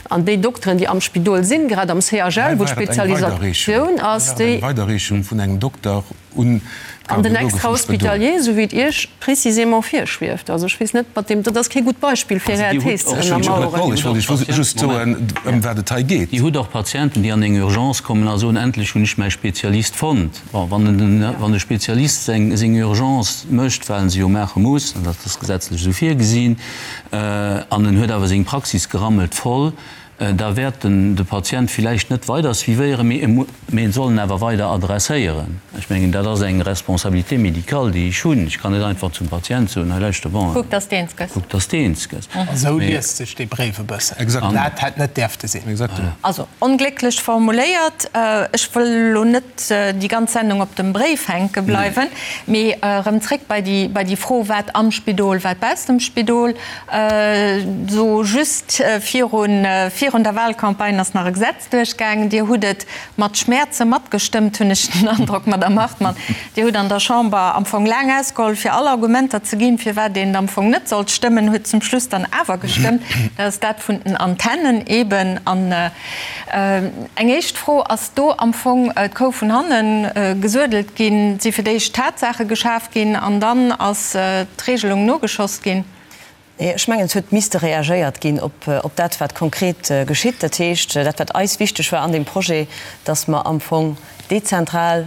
An déi Dokteren, déi am Spidol sinn, grad am CHL, wou d'Spezialisatioun ass, déi. Eng Weiderreechung vun engem Dokter un An den d'Kardiologe vum Spidol. Extrahospitalier, esou wéi et Iech précisément virschwieft. Also ech weess net, mat deem, dat ass kee gutt Beispill, fir Är Thes ze ënnermaueren. Ech wollt Iech just soen, ëm wat et hei geet. Dir hutt och Patienten, déi an eng Urgence kommen a soen, Endlech hunn ech mäi Spezialist fonnt. Bon, wann de Spezialist seng Urgence mécht, well en se jo maache muss, an dat ass gesetzlech esou virgesinn, an en huet awer seng Praxis gerammelt voll, da wäert en de Patient villäicht net weider suivéieren, mee en soll en awer weider adresséieren. Ech mengen, dat ass eng Responsabilité médicale, déi ech hunn. Ech kann net einfach zum Patient soen, hei lauschter, bon, Kuck, dass de eens gëss. Kuck, dass de eens gëss. Esou liest sech dee Bréif e bëssen. Dat hätt net däerfte sinn. Also, onglécklech formuléiert. Ech wëll elo net déi ganz Sendung op dem Bréif hänke bleiwen, mee erëm zréck bei déi, bei déi Fro, wat am Spidol, wat baussent dem Spidol. Esou just virun, virun der Wahlcampagne ass nach e Gesetz duerchgaangen. Dir hutt et mat Schmäerze matgestëmmt, hunn ech den Androck, Madamm Hartmann. Dir hutt an der Chamber am Fong laang ausgeholl, fir all Argumenter ze ginn, firwat een et am Fong net sollt stëmmen, hutt zum Schluss dann awer gestëmmt. Dat ass dat vun den Antennen eeben. An Eng éischt Fro, Ass do am Fong d'Kou vun hanne gesuedelt ginn? Si fir d'éischt Tatsaache geschaf ginn an dann ass d'Regelung nogeschoss ginn? Nee, ech mengen, et huet misste reagéiert ginn op dat, wat konkret geschitt. Dat heescht, dat, wat eis wichteg war an deem Projet, dass mer am Fong dezentral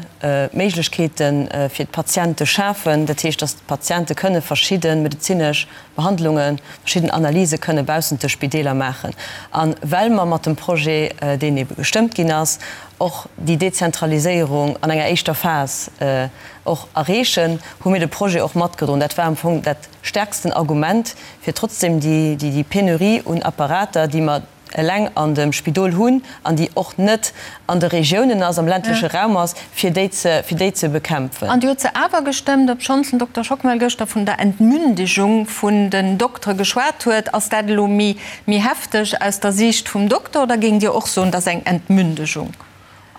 Méiglechkeete fir d'Patiente schafen. Dat heescht, dass d'Patiente kënne verschidde medezinesch Behandlungen, verschidden Analyse kënne baussent de Spideeler maachen. A well mer mat dem Projet, deen ebe gestëmmt ginn ass, och déi Dezentraliséierung an enger éischter Phas och erreechen, hu mir de Projet och matgedroen. Dat war am Fong dat stärksten Argument, fir trotzdem déi Penurie un Apparater, déi mer eleng an dem Spidol hunn an déi och net an de Regiounen ass, am ländleche Raum ass, fir déi ze, fir déi ze bekämpfen. An Dir hutt se awer gestëmmt, obschonns den Dokter Schockmel gëschter vun der Entmündigung vun den Doktere geschwat huet. Ass dat elo méi, méi hefteg aus der Siicht vum Dokter oder géingt Dir och soen, dat ass eng Entmündigung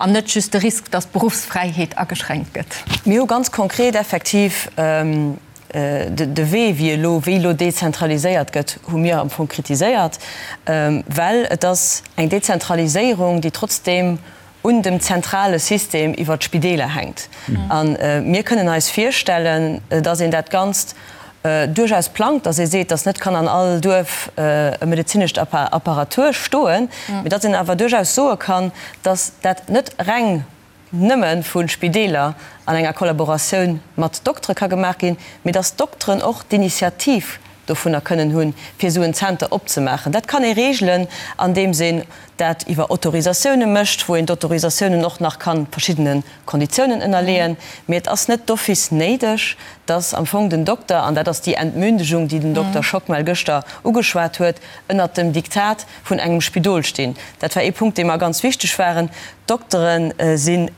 an net just de Risk, datt d'Beruffsfräiheet ageschränkt gëtt? Mir hu ganz konkret effektiv De Wee, wéi elo, wéi elo dezentraliséiert gëtt, hu mir am Fong kritiséiert, well et ass eng Dezentraliséierung, déi trotzdeem un dem zentrale System iwwert d'Spideeler hänkt. A mir kënnen eis virstellen, dass een dat Ganzt duerchaus plangt, dass ee seet, dass net kann an all Duerf e medezinescht Apparatur stoen, mee dass een awer duerchaus soe kann, dass dat net reng nëmme vu Spideeler an enger Kollaboratioun mat Doktere ka gemaach ginn, mee dass d'Dokteren och d'Initiativ. dovunner kënnen hunn, fir esou en Zenter opzemaachen. Dat kann ee regelen, andeems een dat iwwer Autorisatioune mécht, wou een d'Autorisatiounen och nach ka verschiddene Konditiounen ënnerleeën. Mee et ass net d'office néideg, dass am Fong den Dokter, an dat ass déi Entmündigung, déi den Dokter Schockmel gëschter ugeschwat huet, ënnert dem Diktat vun engem Spidol stinn. Dat war ee Punkt, dee mer ganz wichteg waren. D'Doktere sinn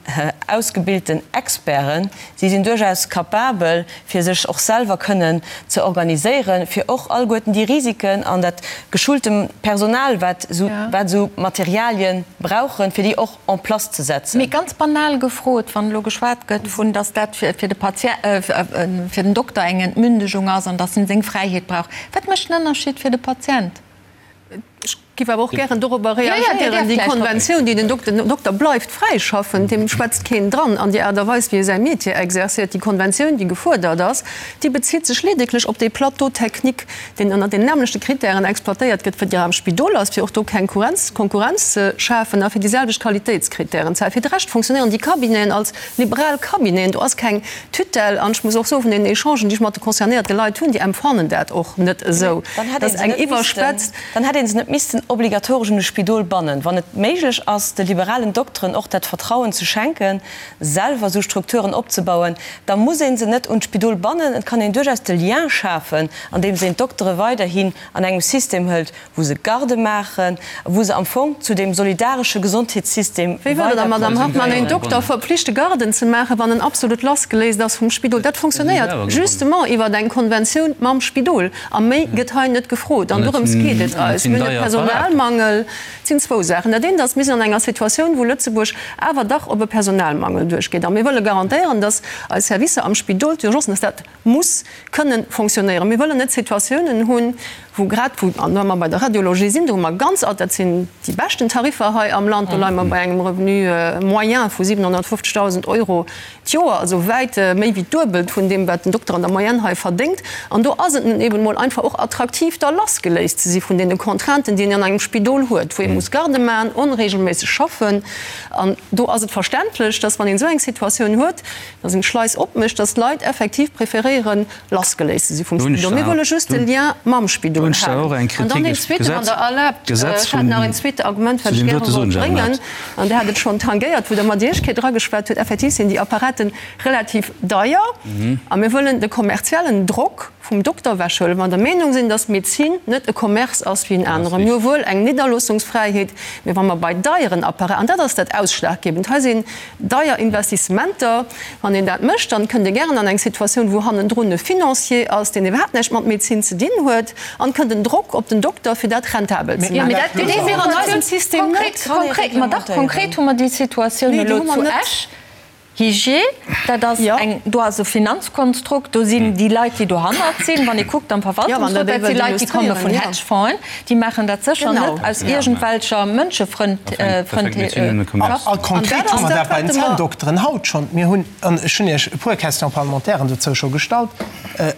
ausgebilten Experten. Si sinn duerchaus capabel, fir sech och selwer kënnen ze organiséieren, fir och alleguerten déi Risiken an dat geschulte Personal, wat esou Materialie brauchen, fir déi och en place ze setzen. Mee ganz banal gefrot, wann elo geschwat gëtt vun, datt dat fir de Patient, fir den Dokter eng Entmündegung ass an datt en seng Fräiheet brauch, wat mécht den Ënnerschied fir de Patient? Ech géif awer och gären dorobber reagéieren, Déi Konventioun, déi den Dokter, den Dokter bleift fräi schaffen, deem schwätzt keen dran an déi Aart a Weis, wéi e säi Métier exerciert. Déi Konventioun, déi gefuerdert ass, déi bezitt sech ledeglech op dee Plateau technique, deen ënner den nämmlechte Kritären exploitéiert gëtt, wéi der am Spidol ass, fir och do keng Konkurrenz ze schafen a fir déi selwecht Qualitéitskritären ze halen. Fir de Rescht fonctionnéieren déi Cabineten als liberal Cabineten. Do ass keng Tutelle. An ech muss och soen, vun den Echangen, déi ech mat de concernéierte Leit hunn, déi empfannen dat och net esou. Dat ass eng iwwerspetzt. Dann hätt ee se net missten obligatoresch un de Spidol bannen. Wann et méiglech ass, de liberalen Dokteren och dat Vertrauen ze schenken, selwer esou Strukturen opzebauen, da muss ee se net un d'Spidol bannen. Et kann een duerchaus de Lien schafen, andeems een d'Doktere weiderhin an engem System hëlt, wou se Garde maachen, wou se am Fong zu deem solidaresche Gesondheetssystem Wéi wëllt Der da, Madamm Hartmann, een Dokter verpflichte Garden ze maachen, wann en absolut lassgeléist ass vum Spidol? Dat fonctionnéiert justement iwwer eng Konventioun mam Spidol. A méi gëtt hei net gefrot. An dorëms geet et eis. Mir hunn e Personalmangel. Et sinn zwou Saachen. Dat eent ass, mir sinn an enger Situatioun, wou Lëtzebuerg awer dach op e Personalmangel duerchgeet. A mir wëlle garantéieren, dass eis Servicer am Spidol, d'Urgencen, dass dat muss kënnen fonctionnéieren. Mir wëllen net Situatiounen hunn, wou grad wou, an wa mer bei der Radiologie sinn, do hu mer ganz, dat sinn déi beschten Tariffer hei am Land, do leie mer bei engem Revenu moyen vu 750.000 Euro d'Joer, also wäit méi wéi d'Duebelt vun deem, wat den Dokter an der Moyenne hei verdéngt. An do ass et nun eben emol einfach och attraktiv, da lassgeléist ze si vun deene Contrainten, déi een an engem Spidol huet, wou ee muss Garde maachen, onregelméisseg schaffen. An do ass et verständlech, dass, wann een esou eng Situatioun huet, dass een d'Schleis opmécht, dass d'Leit effektiv preferéieren, lassgeléist ze si vum Spidol. Mir wëlle just de Lien mam Spidol halen. An dann een zweeten, wann Der erlaabt, ech hat nach een zweete Argument, wat ech gäre wollt bréngen, an Der hat et schonn tangéiert, wou Der mat Iech Kéier drageschwat hutt, Effektiv sinn déi Apparaten relativ deier a mir wëllen de kommerziellen Drock vum Dokter ewechhuelen, wa mer der Meenung sinn, dass Medezin net e Commerce ass wéi en anere. Mir hu wuel eng Nidderloossungsfräiheet, mee wa mer bei deieren Apparaten, an dat ass dat Ausschlaggebend, hei sinn Deier Investissementer, wann een dat mécht, dann kënnt ee gären an eng Situatioun, wou hannendrun e Financier ass, deen iwwerhaapt näischt mat Medezin ze dinn huet, an kënnt en Drock op den Dokter, fir dat rentabel ze maachen. Deen hu mir an eisem System net. Konkret, ma dach, konkret hu mer déi Situatioun elo zu Esch. Hygier, dat ass eng, do ass e Finanzkonstrukt, do sinn déi Leit, déi dohannert sinn, wann ee kuckt am Verwaltungsrot, dat si Leit, déi komme vun Hedgefonds'en, Déi maachen dat sécher net aus iergendwelcher Mënschefrëndlechaft. A konkret hu mer dat bei den Zänndokteren haut schonn. Mir hunn, an ech hunn Iech e puer Question-parlementairen dozou scho gestallt,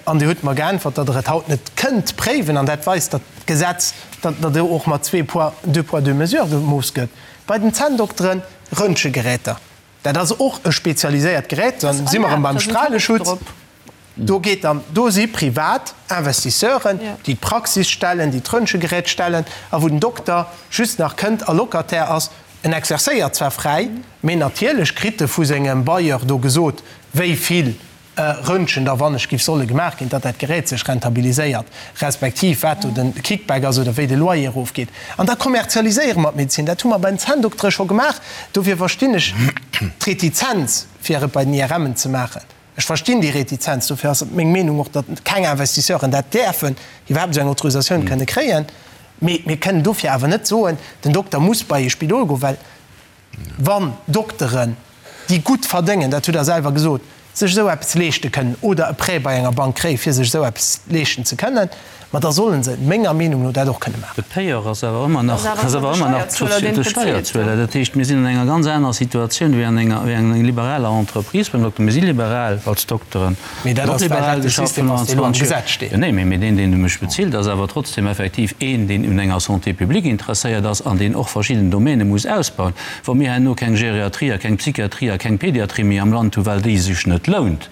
an Dir hutt mer geäntwert, datt Der et haut net kënnt préiwen, an dat weist, datt d'Gesetz, datt do och mat zwee poids, deux poids, deux mesures gemooss gëtt. Bei den Zänndokteren, Röntgegeräter, dat ass och e spezialiséiert Gerät, da si mer erëm beim Strahleschutz. Do geet dann, do si privat Investisseuren, déi d'Praxis stellen, déi d'Röntgegerät stellen a wou den Dokter just nach kënnt a Locataire ass. En exercéiert zwar fräi, mee natierlech kritt e vu sengem Bailleur do gesot, wéi vill Röntgen da wann ech giff solle gemaach ginn, datt dat Gerät sech rentabiliséiert, respektiv wat do de Kickback ass oder wéi de Loyer erofgeet. An da kommerzialiséiere mer d'Medezin. Dat hu mer bei den Zänndoktere scho gemaach. Dofir verstinn ech d'Retizenz, fir et bei den IRMen ze maachen. Ech verstinn déi Retizenz, dofir ass et meng Meenung och, datt keng Investisseuren dat däerfen, iwwerhaapt esou eng Autorisatioun kënne kréien. Mee mir kënnen dofir awer net soen, den Dokter muss bei ee Spidol goen, well wann Dokteren, déi gutt verdéngen, dat hutt Der selwer gesot, sech esou eppes leeschte kënnen oder e Prêt bei enger Bank kréien, fir sech esou eppes leeschten ze kënnen, Ma da sollen se, menger Meenung no, dat och kënne maachen. De Payeur ass awer ëmmer nach, ass awer ëmmer nach de Steierzueler. Dat heescht, mir sinn an enger ganz anerer Situatioun wéi an enger, wéi an enger liberaler Entreprise beim Dokter. Mir si liberal als Dokteren. Mee dat ass, well dat de System ass, deen elo am Gesetz steet. Jo, nee, mee deen, deen mech bezilt, ass awer trotzdem effektiv een, deen un enger Santé publique interesséiert ass an deen och verschidden Domäne muss ausbauen. Wa mir herno keng Geriatrie a keng Psychiatrie a keng Pédiatrie méi am Land hunn, well déi sech net lount,.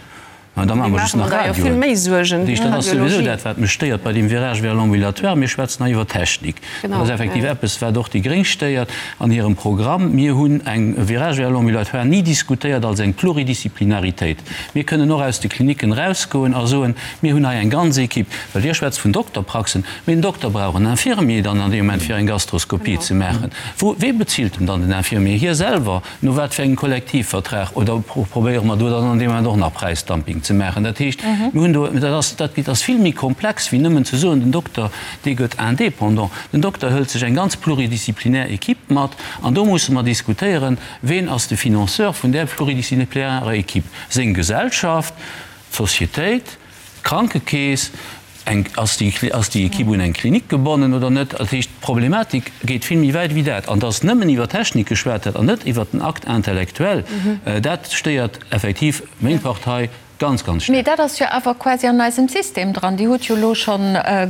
Mä da maache mer just nach Radioen. Dat heescht, dat ass souwisou dat, wat mech stéiert bei deem Virage vers l'ambulatoire. Mir schwätzen hei iwwer Technik. Dat ass effektiv eppes, wat och déi Gréng stéiert an hirem Programm. Mir hunn eng Virage vers l'ambulatoire ni diskutéiert als eng Pluridisciplinaritéit. Mir kënnen och aus de Klinicken erausgoen a soen, Mir hunn hei eng ganz Equipe. Well Dir schwätzt vun Dokterpraxen, mee den Dokter brauch en Infirmier dann an deem Moment, fir eng Gastroskopie ze maachen. Wou, wee bezilt en dann den Infirmier? Hie selwer? No wat fir engem Kollektivvertrag? Oder probéiere mer do dann an deem Moment och nach Präisdumping ze maachen? Dat heescht, mir hunn do, dat ass, dat ass vill méi komplex wéi nëmmen ze soen, den Dokter, dee gëtt indépendant. Den Dokter hëlt sech eng ganz pluridisziplinär Equipe mat an do musse mer diskutéieren, Ween ass de Financeur vun där pluridisziplinarer Equipe? Seng Gesellschaft? D'Societéit? D'Krankekeess? Eng, ass déi, ass déi Equipe un eng Klinik gebonnen oder net? Dat heescht, d'Problematik geet vill méi wäit wéi dat. An dass nëmmen iwwer Technik geschwat gëtt an net iwwer den Acte intellectuel, dat stéiert effektiv meng Partei ganz, ganz staark. Mee dat ass jo awer quasi an eisem System dran. Dir hutt jo elo scho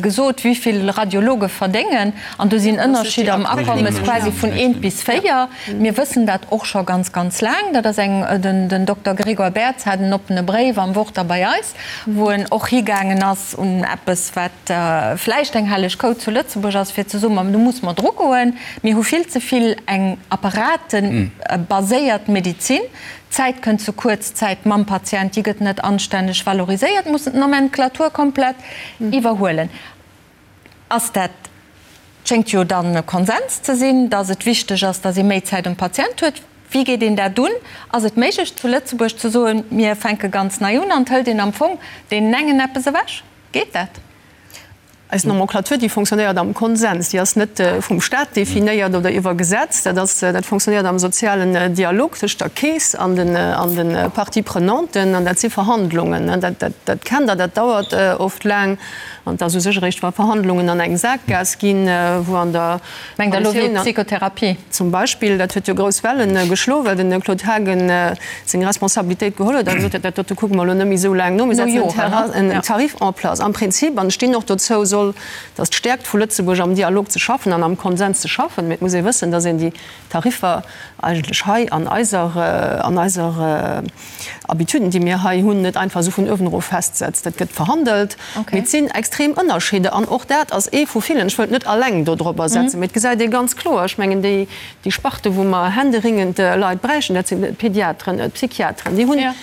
gesot, wéi vill Radiologe verdéngen. An do sinn Ënnerscheeder am Akommes quasi vun eent bis véier. Mir wëssen dat och scho ganz, ganz laang. Dat ass eng, den Dokter Grégoire Bertz hat en oppene Bréif am Wort a bei eis, wou en och higaangen ass un eppes, wat vläicht eng helleg Kou zu Lëtzebuerg ass, fir ze soen, ma do musse mer drugoen, mir hu vill ze vill eng apparatebaséiert Medizin, d'Zäit kënnt ze kuerz, d'Zäit mam Patient, déi gëtt net anstänneg valoriséiert, mussen d'Nomenclature komplett iwwerhuelen. Ass dat, schéngt jo dann e Konsens ze sinn, datt et wichteg ass, datt ee méi Zäit um Patient huet. Wéi geet een dat un? Ass et méiglech zu Lëtzebuerg ze soen, mir fänke ganz nei un an et hëlt een am Fong deenen engen eppes ewech? Geet dat? Eis Nomenclature, déi fonctionnéiert am Konsens, déi ass net vum Staat definéiert oder iwwer Gesetz. Dat ass, dat fonctionnéiert am sozialen Dialog tëscht der Keess an den, an de Parties prenanten. An dat si Verhandlungen, dat, dat, dat kennt Der, dat dauert oft laang. An et ass u sech eréischt, wa Verhandlungen an eng Saakgaass ginn, wou an der Mengt Der elo wéi d'Psychotherapie? Zum Beispill. Dat huet jo grouss Welle geschloen, well de Claude Haagen seng Responsabilitéit geholl huet a gesot huet, dat dote kucke mer elo net méi esou laang no, mir setzen en Tarif en place. Am Prinzip, an ech stinn och dozou, soll dass d'Stäerkt vu Lëtzebuerg am Dialog ze schaffen an am Konsens ze schaffen. Mee et muss ee wëssen, dass een déi Tariffer eigentlech hei an eiser, an eiser, Habituden, déi mir hei hunn, net einfach esou vun uewen erof festsetzt. Dat gëtt verhandelt. Mee et sinn extrem Ënnerscheeder an och dat ass ee vu villen. Ech wëllt net alleng dodropper setzen, mee et gesäit ee ganz kloer, ech mengen déi, déi Sparte wou mer händeringend Leit bräichten, dat sinn d'Pediateren, d'Psychiateren, déi hunn,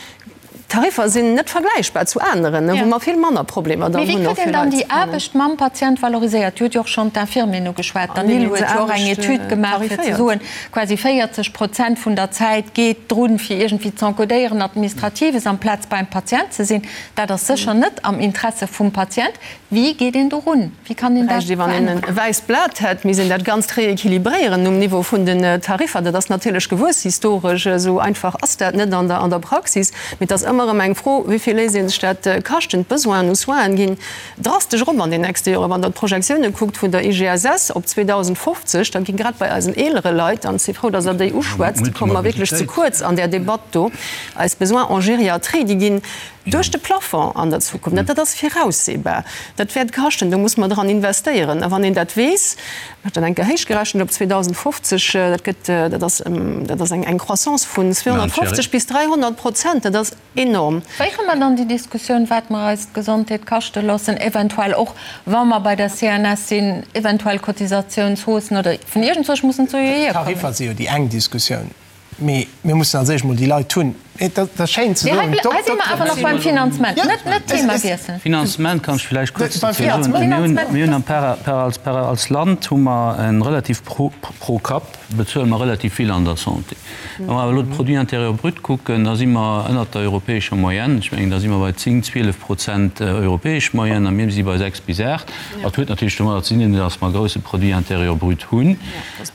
d'Tariffer sinn net vergläichbar zu aneren, wou mer vill manner Problemer dann hunn. Mee wéi kritt een dann déi Aarbecht mam Patient valoriséiert? Dir hutt jo och schonn d'Infirmieren ugeschwat. D'Anil huet jo och eng Etüd gemaach, fir ze soen, Quasi 40 Prozent vun der Zäit geet drun, fir iergendwéi z'encodéieren, Administratives, amplaz beim Patient ze sinn. Dat ass sécher net am Interesse vum Patient. Wéi geet een dorun? Wéi kann een dat Bräicht ee, wann een veränneren? e wäisst Blat hätt, misst een dat Ganzt rééquilibréieren um Niveau vun den Tariffer. Dat ass natierlech gewuess historesch. Esou einfach ass dat net an der Praxis. Mee et ass ëmmer erëm eng Fro, wéi vill léisst ee sech dat kaschten. D'Besoinen u Soinen ginn Drastesch erop an den nächste Joren. Wann Der d'Projektioune kuckt vun der IGSS op 2050, da gi grad bei eisen eelere Leit, an ech si frou, datt Der déi uschwätzt, komme mer wierklech ze kuerz an där Debatt do, eis Besoins en gériatrie, déi ginn duerch de Plafond an der Zukunft. Dat ass viraussehbar. Dat wäert kaschten, do muss mer dran investéieren. A wann een dat weess, ech hunn dat eng Kéier héichgerechent op 2050, dat gëtt, dat ass, dat ass eng Croissance vun 250 bis 300 Prozent. Dat ass Enorm. Féiere mer dann déi Diskussioun, wat mer eis d'Gesondheet kaschte loossen, eventuell och, wa mer bei der CNS sinn, eventuell Cotisatiounshaussen oder vun iergendzwousch mussen d'Sue jo hierkommen. D'Tariffer si jo déi eng Diskussioun, mee mir mussen als éischt mol déi Leit hunn. Et ass schéin ze soen, Mee hei si mer awer nach beim Finanzement, net net d'Thema wiesselen. Finanzement kann ech villäicht kuerz dozou soen. Mir hunn am par als Land hu mer e relativ pro Kapp bezuele mer relativ vill an der Santé. Wa mer awer elo de Produit intérieur brut kucken, da si mer ënnert der europäescher Moyenne. Ech mengen, da si mer bei 10, 12 Prozent europäesch Moyenne a mir si bei 6 bis 8. Dat huet natierlech domadder ze dinn, datt mer e grouse Produit intérieur brut hunn.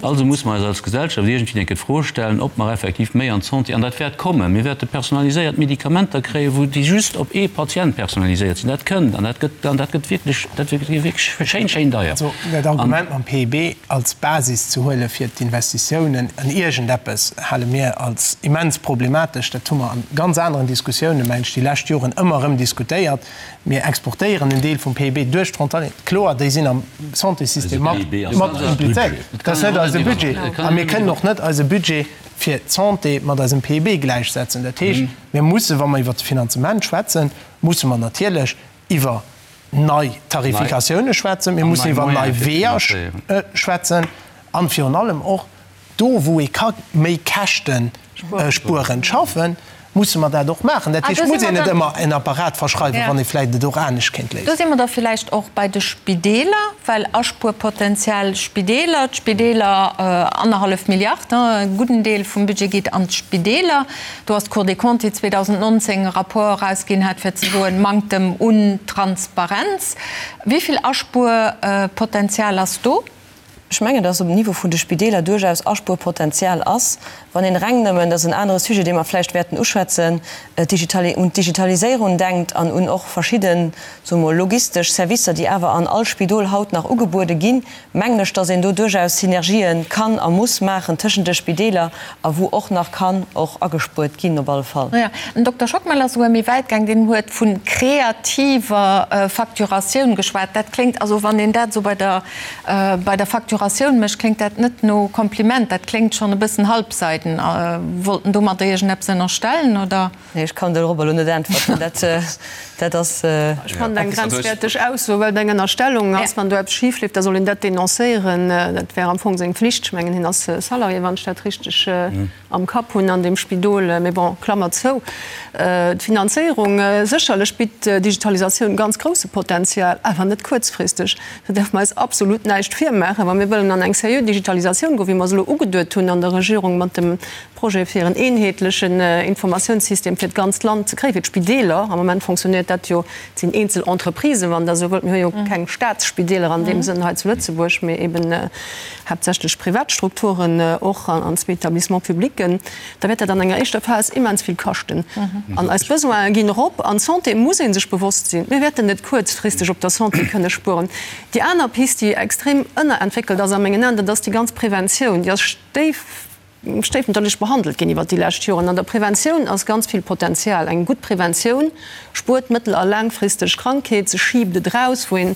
Also muss mer eis als Gesellschaft iergendwéi eng Kéier d'Fro stellen, ob mer effektiv méi an d'Santé, an dat wäert kommen, mir wäerte personaliséiert Medikamenter kréien, wou déi just op ee Patient personaliséiert sinn. Dat kënnt an dat gëtt, an dat gëtt wierklech, dat gëtt wierklech schéin, schéin deier. Also dat Argument mam PIB als Basis ze huele fir d'Investitiounen an iergendeppes, hale mir als immens problematesch. Dat hu mer a ganz aneren Diskussiounen, mengen ech, déi lescht Joren ëmmer erëm diskutéiert. Mir exportéieren en Deel vum PIB duerch d'Frontalieren. Kloer, déi sinn am Santéssystem mat implizéiert. Dat ass net eise Budget. A mir kënnen och net eise Budget. fir d'Santé mat eisem PIB gläichsetzen. Dat heescht, mir mussen, wa mer iwwert de Finanzement schwätzen, musse mer natierlech iwwer nei Tarifikatioune schwätzen, mir mussen iwwer nei Weeër schwätzen an virun allem och do, wou ee ka méi Käschte spuerend schaffen, musse mer dat och maachen. Dat heescht, et muss een net ëmmer en Apparat verschreiwen, wann ee vläicht et och anescht kéint léisen. Do si mer da villäicht och bei de Spideeler, well Aspuerpotenzial Spideeler, d'Spideeler, annerhallef Milliard, e gudden Deel vum Budget geet an d'Spideeler. Do ass d'Cour des Comptes, déi 2019 e Rapport erausginn hat, fir ze soen, Manktem un Transparenz. Wéi vill Aspuerpotenzial ass do? Ech mengen, dass um Niveau vun de Spideeler duerchaus Aspuerpotenzial ass, wann een reng nëmmen, dat ass en anere Sujet, dee mer vläicht wäerten uschwätzen, un d'Digitaliséierung denkt an un och verschidden, soe mer, logistesch Servicer, déi awer an all Spidol haut nach ugebuede ginn, mengen ech, dass een do duerchaus Synergië kann a muss maachen tëschent de Spideeler a wou och nach kann och agespuert ginn op alle Fall. Jo, den Dokter Schockmel ass souguer méi wäit gaang, deen huet vu kreativer Facturatioun geschwat. Dat kléngt, also wann een dat esou bei der Bei der Facturatioun mécht, kléngt dat net no Kompliment, dat kléngt schonn e bëssen halbseiden. Wollt en domadder iergendeppes ënnerstellen, oder? Nee, ech kann dorobber elo net äntwerten. Dat, dat ass. Ech fannen eng grenzwäerteg Ausso, well et eng Ënnerstellung ass. Wann do eppes schif leeft, da soll een dat denoncéieren. Dat wär am Fong seng Flicht. Ech mengen, hien ass Salarié, wann ech dat richteg am Kapp hunn an deem Spidol. Mee bon, Klammer zou. D'Finanzéierung, sécherlech bitt d'Digitalisatioun ganz grousse Potenzial, awer net kuerzfristeg. Do däerfe mer eis absolut näischt virmaachen. Wa mir wëllen an eng seriö Digitalisatioun goen, wéi mer se elo ugeduet hunn an der Regierung mat dem Projet fir en eenheetlechen Informatiounssystem fir d'ganzt Land ze kréien, fir d'Spideeler, am Moment fonctionnéiert dat jo, et sinn eenzel Entreprisen, wann Der esou wëllt, mir hu jo keng Staatsspideeler an deem Sënn hei zu Lëtzebuerg, mee eben haaptsächlech privat Strukturen och an zwee Établissements publics, da wäert dat an enger éischter Phas immens vill kaschten. An eis Besoine ginn erop. An d'Santé muss ee sech bewosst sinn, mir wäerten net kuerzfristeg op der Santé kënne spueren. Déi aner Pist, déi extrem ënnerentwéckelt ass a mengen Aen, dat ass déi ganz Preventioun. Déi ass stéif. Stéifmutterlech behandelt ginn iwwert déi lescht Joren. An der Preventioun ass ganz vill Potenzial. Eng gutt Preventioun spuert mëttel a laangfristeg Krankheet, se schiibt et eraus, wou een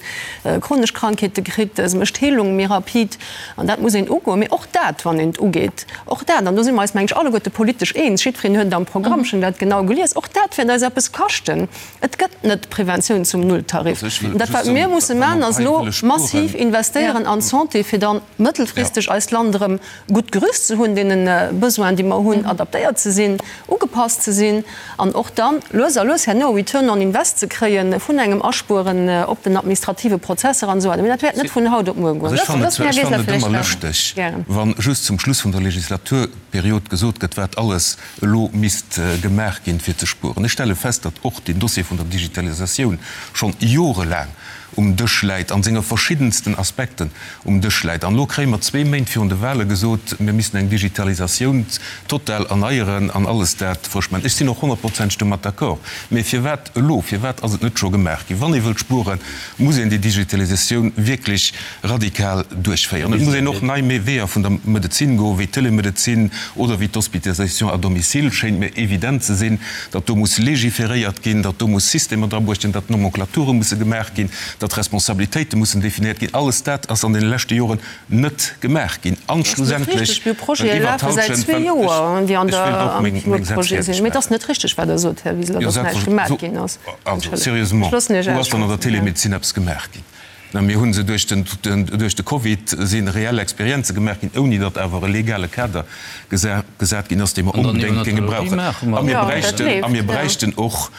chronesch Krankheete kritt, se mécht d'Heelung méi rapid. An dat muss een ugoen. Mee och dat, wann een et ugeet, och dat, an do si mer eis, meng ech, alleguerte politesch eens, jiddwereen huet et am Programm, ech hunn dat genau gelies, och dat wäert eis eppes kaschten. Et gëtt net Preventioun zum Nulltarif. Dat, wat mir musse maachen, ass elo massiv investéieren an d'Santé, fir dann mëttelfristeg eist Land erëm gutt gerüst ze hunn, deene Besoinen, déi mer hunn, adaptéiert ze sinn, ugepasst ze sinn an och dann lues a lues herno e Return on invest ze kréie vun engem Aspueren op den administrative Prozesser an esou weider. Mee dat wäert net vun haut op muer goen. Also ech fannen et, ech fannen et ëmmer lëschteg, wa just zum Schluss vun der Legislaturperiod gesot gëtt, wat alles elo misst gemaach ginn, fir ze spueren. Ech stelle fest, datt och deen Dossier vun der Digitalisatioun schonn jorelaang um Dësch läit, a senge verschiddensten Aspekten um Dësch läit. An elo kréie mer zwee Méint virun de Wahle gesot, mir missten eng Digitalisatioun total erneieren an alles dat frësch maachen. Ech sinn och honnertprozenteg domat d'accord. Mee firwat elo? Firwat ass et net scho gemaach ginn? Wann ee wëllt spueren, muss een déi Digitalisatioun wierklech radikal duerchféieren. Et muss een och nei Weeër vun der Medezin goen, wéi d'Telemedezin oder wéi d'Hospitalisation à domicile. Schéint mir evident ze sinn, datt do muss légiféréiert ginn, datt do muss Systemer drabruecht ginn, datt Nomenclaturë musse gemaach ginn, datt Responsabilitéite mussen definéiert ginn. Alles dat ass an deene leschte Joren net gemaach ginn. An schlussendlech, well iwwert d'Hallschent, well ech, ech wéilt och meng, meng Sätz fäerdeg maachen. Jo, selbstverständlech. Also, sérieusement, wou ass dann an der Telemedezin eppes gemaach ginn? Mä mir hu se duerch den, duerch de Covid si reell Experienze gemaach ginn, ouni datt awer e legale Kader gesat ginn ass, dee mer onbedéngt géinge brauchen. A mir bräichten, a mir bräichten och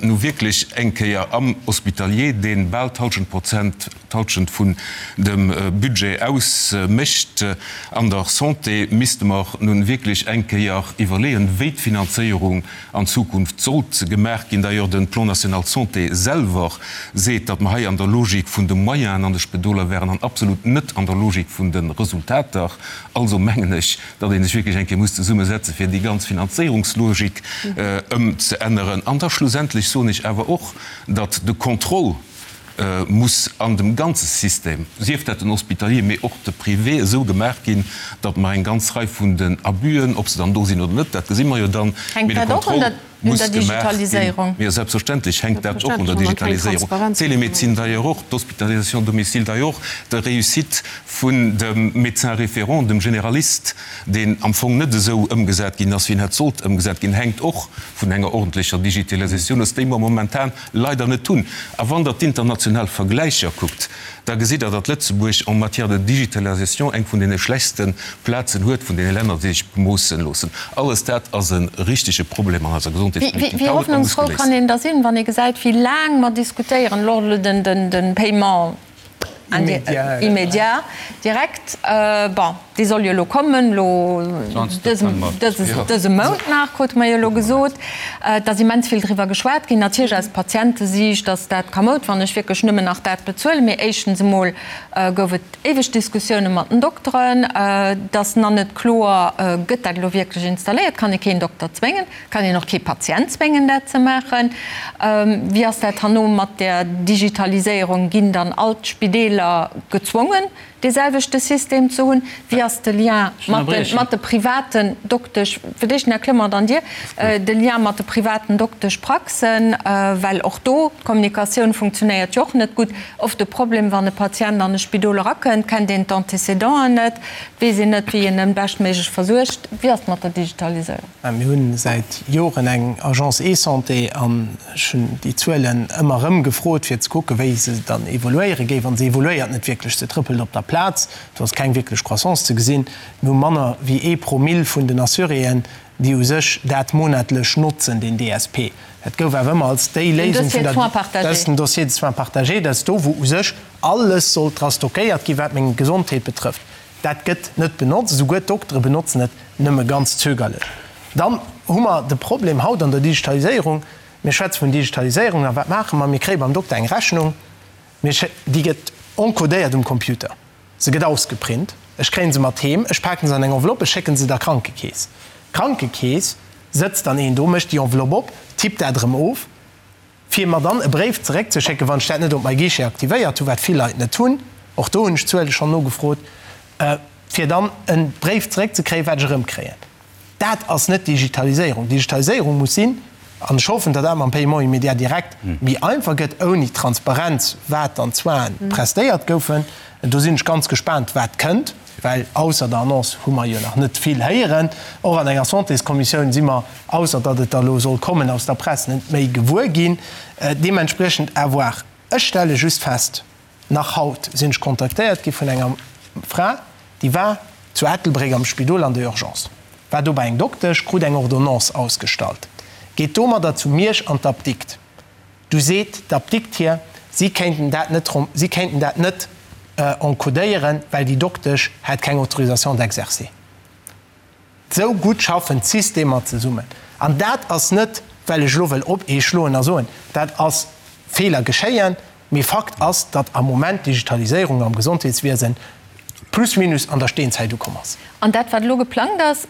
nu wierklech eng Kéier am Hospitalier, dee bal d'Halschent Prozent, d'Halschent vun dem Budget ausmécht, an der Santé misste mer nun wierklech eng Kéier iwwerleeën, wéi d'Finanzéierung an Zukunft sollt gemaach ginn. D'ailleurs, de Plan national santé selwer seet, datt mer hei an der Logik vun de Moyenen an de Spedoler wären an absolut net an der Logik vun de Resultater. Also mengen ech, datt ee sech wierklech eng Kéier muss zesummesetzen, fir déi ganz Finanzéierungslogik ëmzeänneren. An da schlussendlech soen ech awer och, datt de Contrôle muss an dem ganze System, sief dat den Hospitalier, mee och de Privé, esou gemaach ginn, datt mer eng ganz Rei vun den Abusën, ob se dann do sinn oder net, dat gesi mer jo dann, mee de Contrôle. Muss gemaach ginn. Jo, selbstverständlech hänkt dat och un der Digitaliséierung. D'Télémédecine d'ailleurs och, d'Hospitalisation à domicile d'ailleurs och, d'Réussite vun dem Médecin référent, dem Généraliste, deen am Fong net esou ëmgesat ginn ass, wéi en hätt sollt ëmgesat ginn, hänkt och vun enger ordentlecher Digitalisatioun of, déi mer momentan leider net hunn. A wann Der d'international Vergläicher kuckt, da gesitt Der, datt Lëtzebuerg en matière de digitalisation eng vun deene schlechtste Plazen huet vun deene Länner, déi sech bemoossen loossen. Alles dat ass e richtege Problem an eiser Gesondheetspolitik Wéi haut a muss hoffnungsfrou geléist kann een da sinn, wann ee gesäit, wéi laang mer diskutéieren, elo de Paiement immédiat direct, bon, dee soll jo elo kommen, elo dëse Mount nach, krute mer jo elo gesot. Et ass immens vill driwwer geschwat ginn, natierlech aus Patientesiicht ass dat kamoud, wann ech wierklech nëmmen nach dat bezuelen. Mee éischtens emol gouf et éiweg Diskussioune mat den Dokteren. Et ass nach net kloer, gëtt dat elo wierklech installéiert, kann ee keen Dokter zwéngen, kann een och kee Patient zwéngen, dat ze maachen. Wéi ass dat herno mat der Digitaliséierung, ginn dann all d'Spideeler gezwongen, dee selwechte System ze hunn? Wéi ass de Lien mat de privaten Doktesch, fir d'éischt den Här Clement, dann Dir, de Lien mat de privaten Dokteschpraxen, well och do d'Kommunikatioun funktionéiert jo och net gutt. Oft de Problem, wann e Patient an e Spidol erakënnt, kennt een d'Antécédenten net, weess een net, wéi een en beschtméiglech versuergt. Wéi ass et mat der Digitaliséierung? Mir hu säit Joren eng Agence eSanté an ech hunn déi Zuelen ëmmer erëm gefrot, fir ze kucken, wéi se dann evoluéiere géif. An se evoluéiert net wierklech, se trëppelt op der Plaz, do ass keng wierklech Croissance ze gesinn. Mir hu manner wéi ee Promill vun den Assuréen, déi u sech dat monatlech notzen, deen DSP. Dat gouf awer ëmmer als déi Léisung vun der, dat ass den Dossier de soins partagé, dat ass do, wou u sech alles sollt dra stockéiert ginn, wat meng Gesondheet betrëfft. Dat gëtt net benotzt, esouguer d'Doktere benotzen et nëmme ganz zögerlech. Dann hu mer de Problem haut an der Digitaliséierung, mir schwätze vun Digitaliséierung, a wat maache mer? Mir kréie beim Dokter eng Rechnung, mir schéi, déi gëtt encodéiert um Computer, se gëtt ausgeprint, ech kréie se mat heem, ech paken se an eng Enveloppe, ech schécke se der Krankekeess. D'Krankekeess sëtzt dann een do, mécht déi Enveloppe op, tippt dat erëm of. fir mer dann e Bréif zeréckzeschécken, wann ech dat net op MyGuichet aktivéiert hunn, wat vill Leit net hunn, och do hunn ech d'Zuele schonn nogefrot, fir dann e Bréif zeréckzekréien, wat ech erëmkréien. Dat ass net Digitaliséierung. Digitaliséierung muss sinn, an ech hoffen, datt dat mam Paiement immédiat direct méi einfach gëtt, ouni Transparenz, wat dann d'Soinen prestéiert goufen. Do sinn ech ganz gespaant, wat kënnt. Well ausser der Annonce hu mer jo nach net vill héieren. Och an enger Santéskommissioun si mer, ausser datt et da elo soll kommen, aus der Press net méi gewuer ginn. Deementspriechend à voir. Ech stelle just fest, nach haut sinn ech kontaktéiert gi vun enger Fra, déi war zu Ettelbréck am Spidol an der Urgence, war do bei eng Doktesch, krut eng Ordonnance ausgestallt, geet domadder zu Miersch an d'Apdikt. Du seet d'Apdikt hir, si kéinten dat net, si kéinten dat net encodéieren, well déi Doktesch hätt keng Autorisation d'exercer. Esou gutt schaffen d'Systemer zesummen. An dat ass net, well ech elo wëll op ee schloen a soen, dat ass Feeler geschéien, mee Fakt ass, datt am Moment d'Digitaliséierung am Gesondheetswiesen plus minus an der Steenzäit ukomm ass. An dat, wat elo geplangt ass,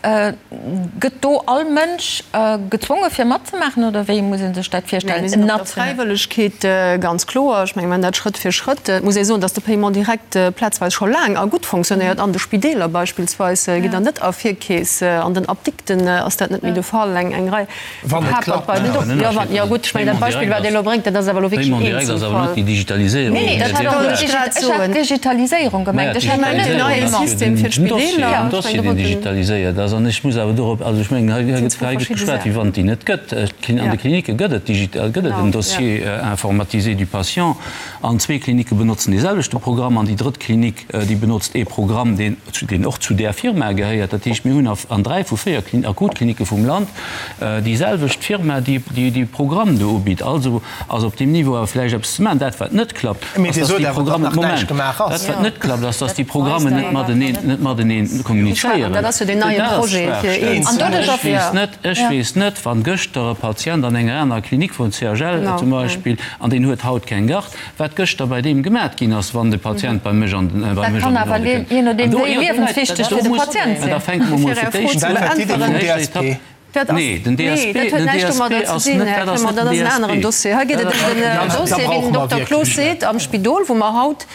gëtt do all Mënsch gezwonge fir matzemaachen oder wéi muss ee sech dat virstellen? Mir sinn op der Fräiwëllegkeet, ganz kloer. Ech mengen, mir maachen dat Schrëtt fir Schrëtt. Et muss ee soen, datt de Paiement direct plazweis scho laang a gutt fonctionnéiert. An de Spideeler beispillsweis gitt Der net a Virkeess, an den Apdikten ass dat net méi de Fall. Eng Rei Wann et klappt. Jo, wann, jo gutt, ech mengen dat Beispill, wat Dir elo bréngt, dat ass awer elo wierklech en Eenzelfall. Nee, nee, dat wollt ech grad soen. Ech hat d'Digitaliséierung gemengt, ech hat net den Paiement. System fir d'Spideeler. Den Dossier, deen digitaliséiert ass, an ech muss awer dorop, also ech mengen, hei gëtt hei gëtt geschwat, wéi wann et déi net gëtt. An de Klinicke gëtt et digital, gëtt et en Dossier informatisé du patient, an zwee Klinicke benotzen dee selwechte Programm, an déi drëtt Klinik, déi benotzt ee Programm, deen deen och zu där Firma gehéiert. Dat heescht, mir hunn an dräi vu véier Akutklinicke vum Land déi selwecht Firma, déi dee Programm do ubitt. Also ass op deem Niveau awer vläicht eppes ze maachen. Dat, wat net klappt, ass, dass déi Programmen, Moment, dat, wat net klappt, ass, dass déi Programmen net mateneen, net mateneen kommunizéieren. Dat ass d'Schwaachstell. Ech weess net, ech weess net, wann gëschter e Patient an enger anerer Klinik wor, CHL zum Beispill, an deen huet haut keng Garde, Wat gëschter bei deem gemat ginn ass, wann de Patient bei mech an den bei mech an den Ordre kënnt. Je nodeem wéi liewenswichteg fir de Patient sinn. Da fänke mer mol fir d'éischt un. Nee, den DSP, den DSP ass net, dat ass net den DSP. Hei geet et ëm den Dossier, wéi den Dokter Cloos seet, am Spidol, wou mer haut,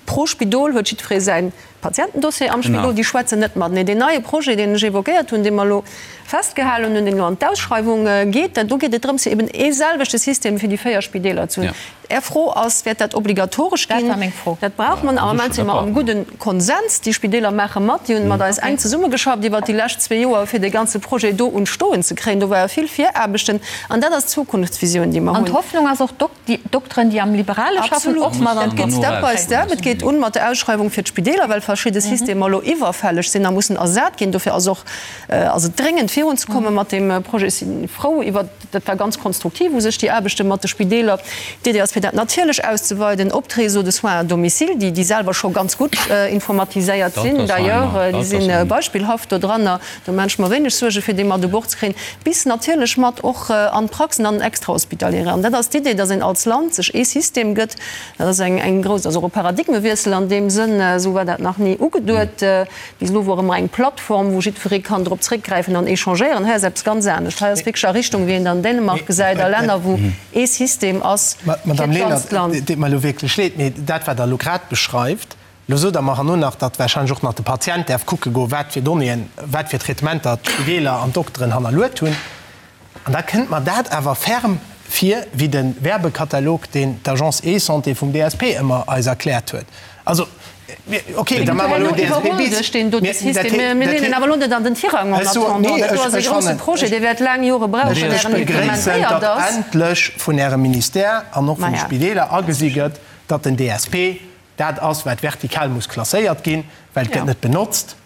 pro Spidol huet jiddweree säin. Patientendossier am Spidol, déi schwätzen net mateneen. Deen neie Projet, deen ech évoquéiert hunn, dee mer elo festgehalen hunn, deen elo an d'Ausschreiwung geet, do geet et drëms, fir eben ee selwechte System fir déi 4 Spideeler ze hunn. Är Fro ass, Wäert dat obligatoresch ginn? Dat war meng Fro. Dat brauche mer. Am Moment si mer am gudde Konsens. Déi Spideeler maache mat. Déi hunn mat eis enk zesummegeschafft iwwert déi lescht zwee Joer, fir dee ganze Projet do un d'Stoen ze kréien. Do ware vill Viraarbechten. An dat ass d'Zukunftsvisioun, déi mer hunn. An d'Hoffnung ass och, déi Dokteren, déi am Liberale schaffen, och mat an Absolut. Dat geet Step by step. Et geet un mat der Ausschreiwung fir d'Spideeler, well verschidde Systemer elo iwwerfälleg sinn a mussen ersat ginn. Dofir ass och ass et dréngend virunzekomme mat deem Projet. Ech si frou iwwert. Dat war ganz konstruktiv u sech, déi Aarbechte mat de Spideeler. D'Idee ass, fir dat natierlech auszeweiden op d'Réseaux de soins à domicile, déi, déi selwer scho ganz gutt informatiséiert sinn d'ailleurs, déi si beispillhaft dodranner, do maan ech mer wéineg Suerge fir déi mat u Bord ze kréien, bis natierlech mat och an d'Praxen, an den Extrahospitaliere. An dat ass d'Idee, dass een als Land sech ee System gëtt. Dat ass eng, eng grouss, ass och e Paradigmewiessel an deem Sënn, esou war dat nach ni ugeduet. Bis elo wor ëmmer eng Plattform, wou jiddweree kann drop zréckgräifen an échangéieren. Hei ass eppes ganz anescht. Hei ass wierklech a Richtung, wéi een et an Dänemark gesäit, a Länner, wou ee System ass fir Madame d'ganzt Lenert, Land. et deet mer elo wierklech leed, mee dat, wat Der elo grad beschreift, elo sot Der mer herno nach, datt warscheinlech och nach de Patient däerf kucke goen, wat fir Donnéeën, wat fir Traitementer d'Spideeler an d'Dokteren hannerluet hunn. An da kënnt mer dat awer ferm vir wéi de Werbekatalog, deen d'Agence eSanté vum DSP ëmmer eis erkläert huet. Also, ok, da maache mer elo en DSP bis. Mir leeën awer elo net an den Tirang en attendant. Dat do ass e grousse Projet, dee wäert laang Jore brauchen, ier en implementéiert ass. Ech begréissen, datt endlech vun Ärem Ministère an och vun de Spideeler agesi gëtt, datt den DSP dat ass, wat vertikal muss klasséiert ginn, well et gëtt net benotzt.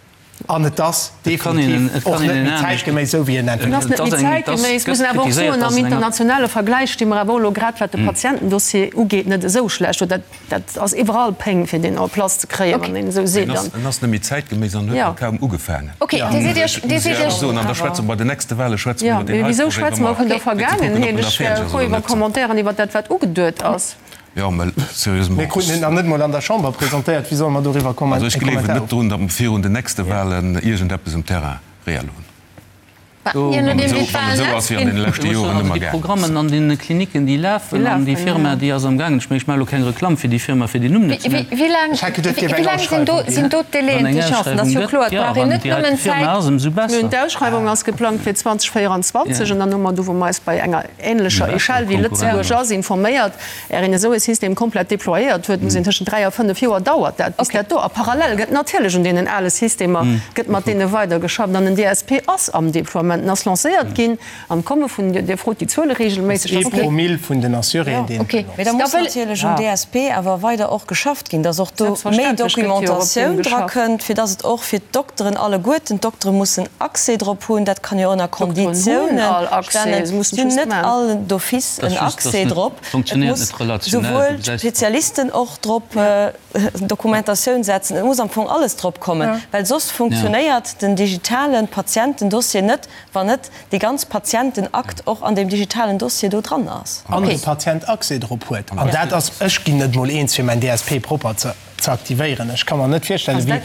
An et ass definitiv och net méi zäitgeméiss, esou wéi en entwéckelt gëtt. Et ass net méi zäitgeméiss. Ech muss awer och soen, am internationale Vergläich sti mer awer och elo, grad wat de Patientendossier ugeet, net esou schlecht do. Dat ass iwwerall Péng, fir deen en place ze kréien, wann een esou seet. En ass net méi zäitgeméiss an huet nach kaum ugefaangen. Ok, Dir sidd Iech, Dir sidd Iech. An da schwätze mer bei den nächste Wahle schwätze mer iwwer deen heite Projet. Wéisou schwätze mer vun der Vergaangenheet? Ech wär frou iwwer Commentairen iwwer dat, wat ugeduet ass. Jo, mä sérieusement. Mir kruten en nach net mol an der Chamber presentéiert. Wéi solle mer doriwwer Kommentaren Also ech gleewen net drun, datt mer virun den nächste Wahlen iergendeppes um Terrain reell hunn. Je nodeem wéi d'Wahlen Esou ass wéi an deene leschte Joren ëmmer Déi gaangen ass. Programmen an deene Klinicken, déi lafen, an déi Firma, déi ass am gaangen, ech mengen, ech maache elo keng Reklamm fir déi Firma, fir den Numm net ze nennen. Wéi laang sinn do, sinn do d'Délaiën, Wann eng d'Échéancen? Dat ass Ausschreiwung jo gëtt, kloer, et jo, brauch een wann net déi heite nëmmen Firma Zäit. ass, ëmsou besser. D'Ausschreiwung ass geplangt fir 2024 an dann hu mer do, wou mer eis bei enger änlecher Echelle wéi Lëtzebuerg ass, informéiert. Är een esou e System komplett déployéiert huet, muss een tëschent 3 a 5 Joer dauert dat, bis dat do. A parallel gëtt natierlech un deenen ale Systemer, gëtt mat deene weidergeschafft. An den DSP ass am Déploiement, en ass lancéiert ginn an komme vun, Dir frot déi Zuele regelméisseg, Ee Promille vun den Assuréen, deen et benotzt. Mee da muss natierlech um DSP awer weider och geschafft ginn, dass och do méi Documentatioun drakënnt, fir dass et och fir d'Dokteren alleguerten, d'Doktere mussen Accès drop hunn, dat kann jo ënner Konditiounen stellen, si hunn net all d'office en Accès drop, et muss souwuel d'Spezialisten och drop Dokumentatioun setzen, et muss am Fong alles drop kommen, well soss funktionéiert den digitale Patientendossier net, wann net dee ganz Patientenakt och an deem digitalen Dossier do dran ass. An de Patient Accès drop huet. An dat ass, ech ginn net mol eens fir mäin DSP propper ze. ze aktivéieren. Ech ka mer net virstellen, wéi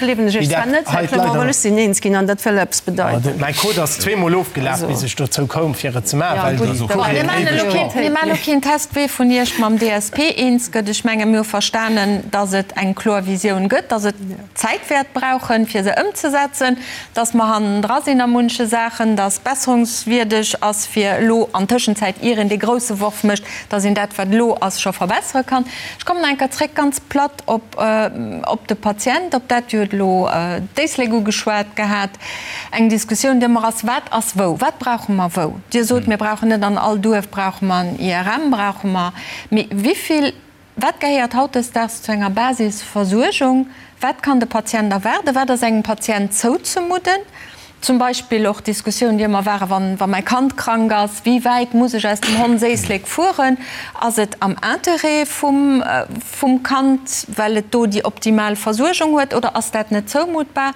dat hei d'Leit. Ech sinn eens ginn an dat wëll eppes bedeiten. Mäi Code ass zweemol ofgelaf, bis ech dozou koum, fir et ze maachen, well déi Courrieren éiweg brauchen. Mir maachen elo keen Test, wee vun Iech mam DSP eens gëtt. Ech menge mir hu verstanen, datt et eng kloer Visioun gëtt, datt et Zäit wäert brauchen, fir se ëmzesetzen, datt mer hannendra sinn a munche Saachen, datt besserungswierdeg ass, fir elo an Tëschenzäit, ier een dee grousse Worf mécht, datt een dat, wat elo ass, scho verbessere kann. Ech kommen nach eng Kéier zréck, ganz platt, op, op de Patient, op dat, Dir hutt elo d'Éislek ugeschwat gehat, eng Diskussioun, déi ëmmer ass, Wat ass wou? Wat brauche mer wou? Dir sot, mir brauchen net an all Duerf brauche mer en IRM, brauche mer, mee wivill, wat gehéiert hautdesdaags zu enger Basisversuergung? Wat kann de Patient erwaarden? Wat ass engem Patient zouzemudden? Zum Beispill och d'Diskussioun, déi ëmmer war, Wann, wa mäi Kand krank ass, wéi wäit muss ech aus dem Hondséislek fueren? Ass et am Interêt vum, vum Kand, well et do déi optimal Versuergung huet, oder ass dat net zoumuttbar?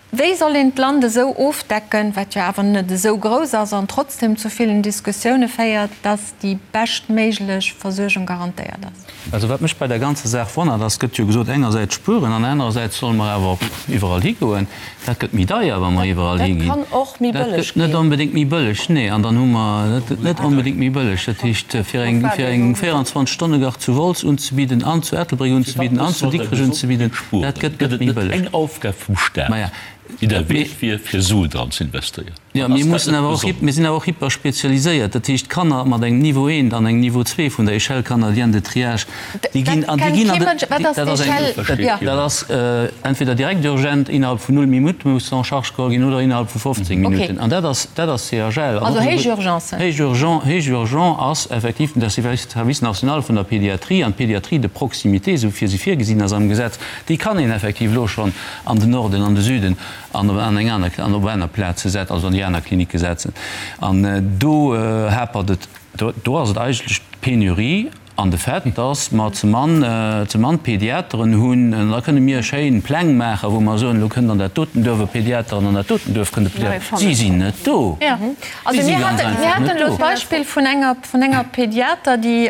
Wéi soll een d'Land esou ofdecken, wat jo awer net esou grouss ass an trotzdem zu villen Diskussioune féiert, dass déi beschtméiglech Versuergung garantéiert ass? Also wat mech bei der ganzer Saach wonnert ass, gëtt jo gesot, engersäits spueren an anerersäits solle mer awer iwwerall higoen. Dat gëtt méi deier, wa mer iwwerall higinn. Dat kann och méi bëlleg ginn. Dat gëtt net onbedéngt méi bëlleg, nee. An dann hu mer, dat gëtt net onbedéngt méi bëlleg. Dat heescht, fir eng, fir eng 24 Stonne-Garde zu Wolz unzebidden an zu Ettelbréck unzebidden an zu Dikrech unzebidden, dat gëtt net méi bëlleg. Eng Aufgab vum Staat, déi der Wäert wier, fir Suen dran ze investéieren. Jo, mir mussen awer och, mir sinn awer och hyperspezialiséiert. Dat heescht, Kanner mat engem Niveau eent an engem Niveau zwee vun der Échelle canadienne de triage, déi ginn an, déi ginn an de, dat ass eng, dat ass entweder direkt urgent, innerhalb vun null Minutte muss en charge geholl ginn, oder innerhalb vu 15 Minutten. An dat ass, dat ass CHL. Also héich Urgencen. Héich urgent, héich urgent ass effektiv den Service national vun der Pédiatrie an d'Pédiatrie de proximité, esou wéi se virgesinn ass am Gesetz, déi kann een effektiv elo schonn an den Norden, an de Süden an op an eng aner, an op aner Plaze setzen, also an déi aner Klinicke setzen. An do hapert et, do, do ass et eigentlech d'Penurie an de Fait, dass mer ze mann, ze mann Pediateren hunn. An da kënne mir schéin Pläng maachen, wou mer soen, elo kënnt an dat doten Duerf e Pediater an an dat doten Duerf kënnt e Pediater. Si sinn net do. Also mir haten, mir haten elo d'Beispill vun enger, vun enger Pediater, déi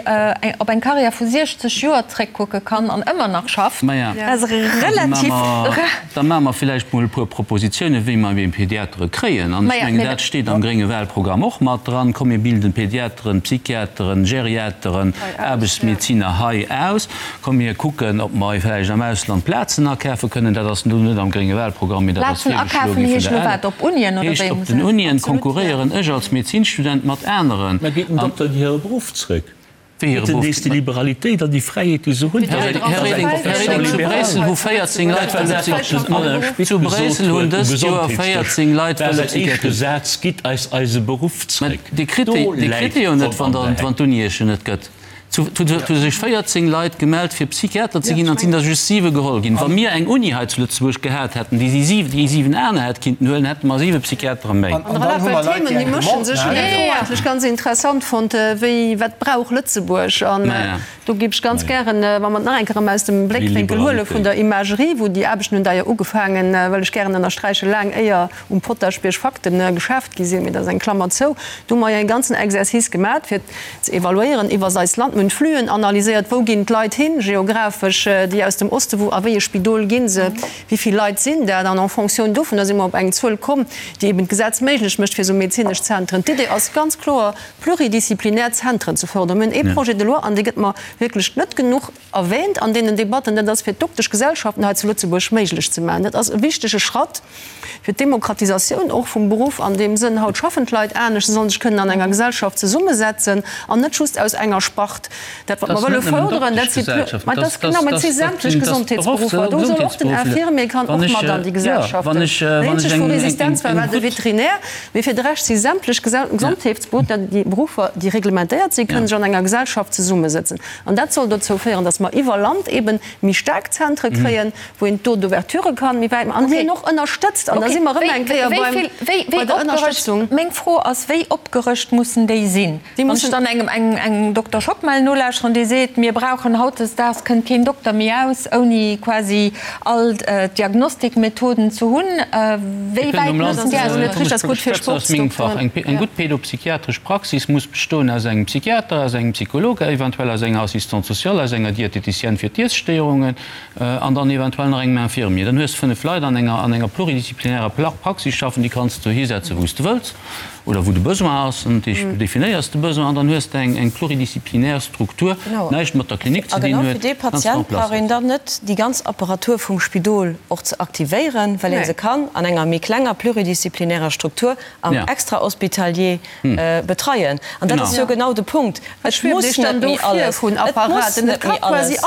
op eng Karriär vu 60 Joer zréckkucke kann an ëmmer nach schafft. Maja, Dat ass relativ rar. Da maache mer villäicht mol e puer Propositionen, wéi mer eben Pediatere kréien. An ech mengen, dat steet am grénge Wahlprogramm och mat dran. Komm, mir bilden Pediateren, Psychiateren, Geriateren, Aarbechtsmedeziner hei aus. Komm, mir kucken, ob mer vläicht am Ausland Plazen akafe kënnen. Dat ass elo net am grénge Wahlprogramm, mee dat ass Plazen virgeschloe akafen gi vun heescht der elo ALA. wat? Op Unien oder Heescht, wéi op muss den een dat? Unien konkurréieren ech als Medezinstudent mat aneren. Mä geet den An. Dokter an hire Beruff zrëck? Wéi hire Geet en Beruff? nees déi Liberalitéit an déi Fräiheet, déi se hunn? Här Reding, Här Reding, Här Reding, zu Bréissel hu 14 Leit Dat war wëlle dat, wat den Alain Spitz Zu gesot Bréissel hunn huet um dëst Joer Gesondheetsdësch. 14 Leit War wëlle säin éischte Psychiatrie. Saz, Gitt eis eise Beruff Mä zrëck. Dir kritt Do déi, Dir läit kritt déi jo net, d'Pomm wann an der, der Heck. wann d'Uni Iech se net gëtt. Zu hu sech 14 Leit gemellt fir Psychiater ze ginn an et sinn der just 7 geholl ginn. Wa mir eng Uni hei zu Lëtzebuerg gehat hätten, déi déi 7 aner hätt kinnten huelen, hätte mer 7 Psychiatere méi. An dann hu mer Leit, déi eng Demande Ech hunn déi Fro eigentlech ganz interessant fonnt, wéi, wat brauch Lëtzebuerg? An do géif ech ganz gären, wa mer et nach eng Kéier erëm aus dem Bléckwénkel huele vun der Imagerie, wou déi Aarbechten hunn d'ailleurs ugefaangen, wëll ech gären ënnersträichen, laang éier um Potaschbierg Fakten geschaaft gi sinn, mee dat ass eng Klammer zou, do hu mer jo e ganzen Exercice gemat, fir ze evaluéieren iwwer eist Land. Mir hunn d'Fluen analyséiert, wou ginn d'Leit hin, geographesch, déi aus dem Oste, wou a wéi e Spidol gi se, wéi vill Leit sinn dat. An en fonction dovunner si mer op eng Zuel komm, déi eben d'Gesetz méiglech mécht fir esou medezinesch Zentren. D'Idee ass ganz kloer, pluridisziplinär Zentren ze fördern. Mir hunn ee Projet de loi, an dee gëtt mer wierklech net genuch erwähnt an deenen Debatten, dat ass fir d'Dokteschgesellschaften hei zu Lëtzebuerg méiglech ze maachen. Dat ass e wichtege Schratt fir d'Demokratisatioun och vum Beruff an deem Sënn. Haut schaffen d'Leit anescht, se sollen sech kënnen an enger Gesellschaft zesummesetzen an net just aus enger Spart. Dat wat mer wëlle fërderen, dat si mä dat ass genau, mä et si sämtlech Gesondheetsberuffer. Do soll och den Infirmier kann och mat an déi Gesellschaften. Déi eenzeg wou Resistenz war, war de Veterinär. Mee fir de Rescht si sämtlech Gesondheetsberuffer, déi Beruffer, déi reglementéiert sinn, kënnen sech an enger Gesellschaft zesummesëtzen. An dat soll dozou féieren, dass mer iwwer Land eben méi staark Zentre kréien, wou een d'Taux d'ouverture kann méi wäit maachen an déi een och ënnerstëtzt. An da si mer erëm eng Kéier beim, bei der Ënnerstëtzung. Meng Fro ass, Wéi opgerëscht mussen déi sinn? Wann ech dann engem, engem Dokter Schockmel nolauschteren, dee seet, mir brauchen hautdesdaags kënnt keen Dokter méi aus, ouni quasi all d'Diagnostikmethoden ze hunn, wéi wäit mussen déi aus? Eng gutt pédopsychiatresch Praxis muss bestoen aus engem Psychiater, aus engem Psycholog, eventuell aus enger Assistante sociale, aus enger Diététicienne fir d'Iesstéierungen an dann eventuell nach engem Infirmier. Dann hues de 5 Leit an enger an enger pluridisziplinärer Praxis schaffen, déi kanns de hisetzen, wou s de wëlls oder wou de Besoin ass. An du definéiers de Besoin an dann hues de eng pluridisziplinär Struktur, déi näischt mat der Klinik ze A dinn genau fir huet, dee ganz en Patient place brauch een setzt. dann net déi ganz Apparatur vum Spidol och ze aktivéieren, well ee se kann an enger méi klenger pluridisziplinärer Struktur am Extrahospitalier betreien. An dat ass jo genau de Punkt. Et muss net méi alles, et muss net méi alles.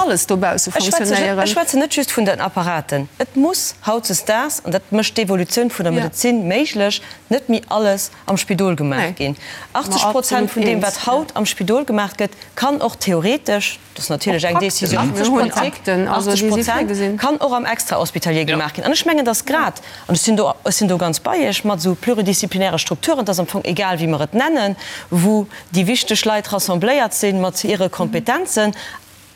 Ech schwätzen net just vun den Apparaten. Et muss hautzesdaags, an dat mécht d'Evolutioun vun der Medezin méiglech, net méi alles am Spidol gemaach ginn. 80 Prozent vun deem, wat haut am Spidol gemaach gëtt, kann och theoretesch, dat ass natierlech eng Décision politique, 80 Prozent kann och am Extrahospitalier gemaach ginn. An ech mengen, dass grad, an ech sinn do, ech sinn do ganz bei Iech, mat esou pluridisziplinäre Strukturen, et ass am Fong egal, wéi mer et nennen, wou déi wichteg Leit rassembléiert si mat hire Kompetenzen.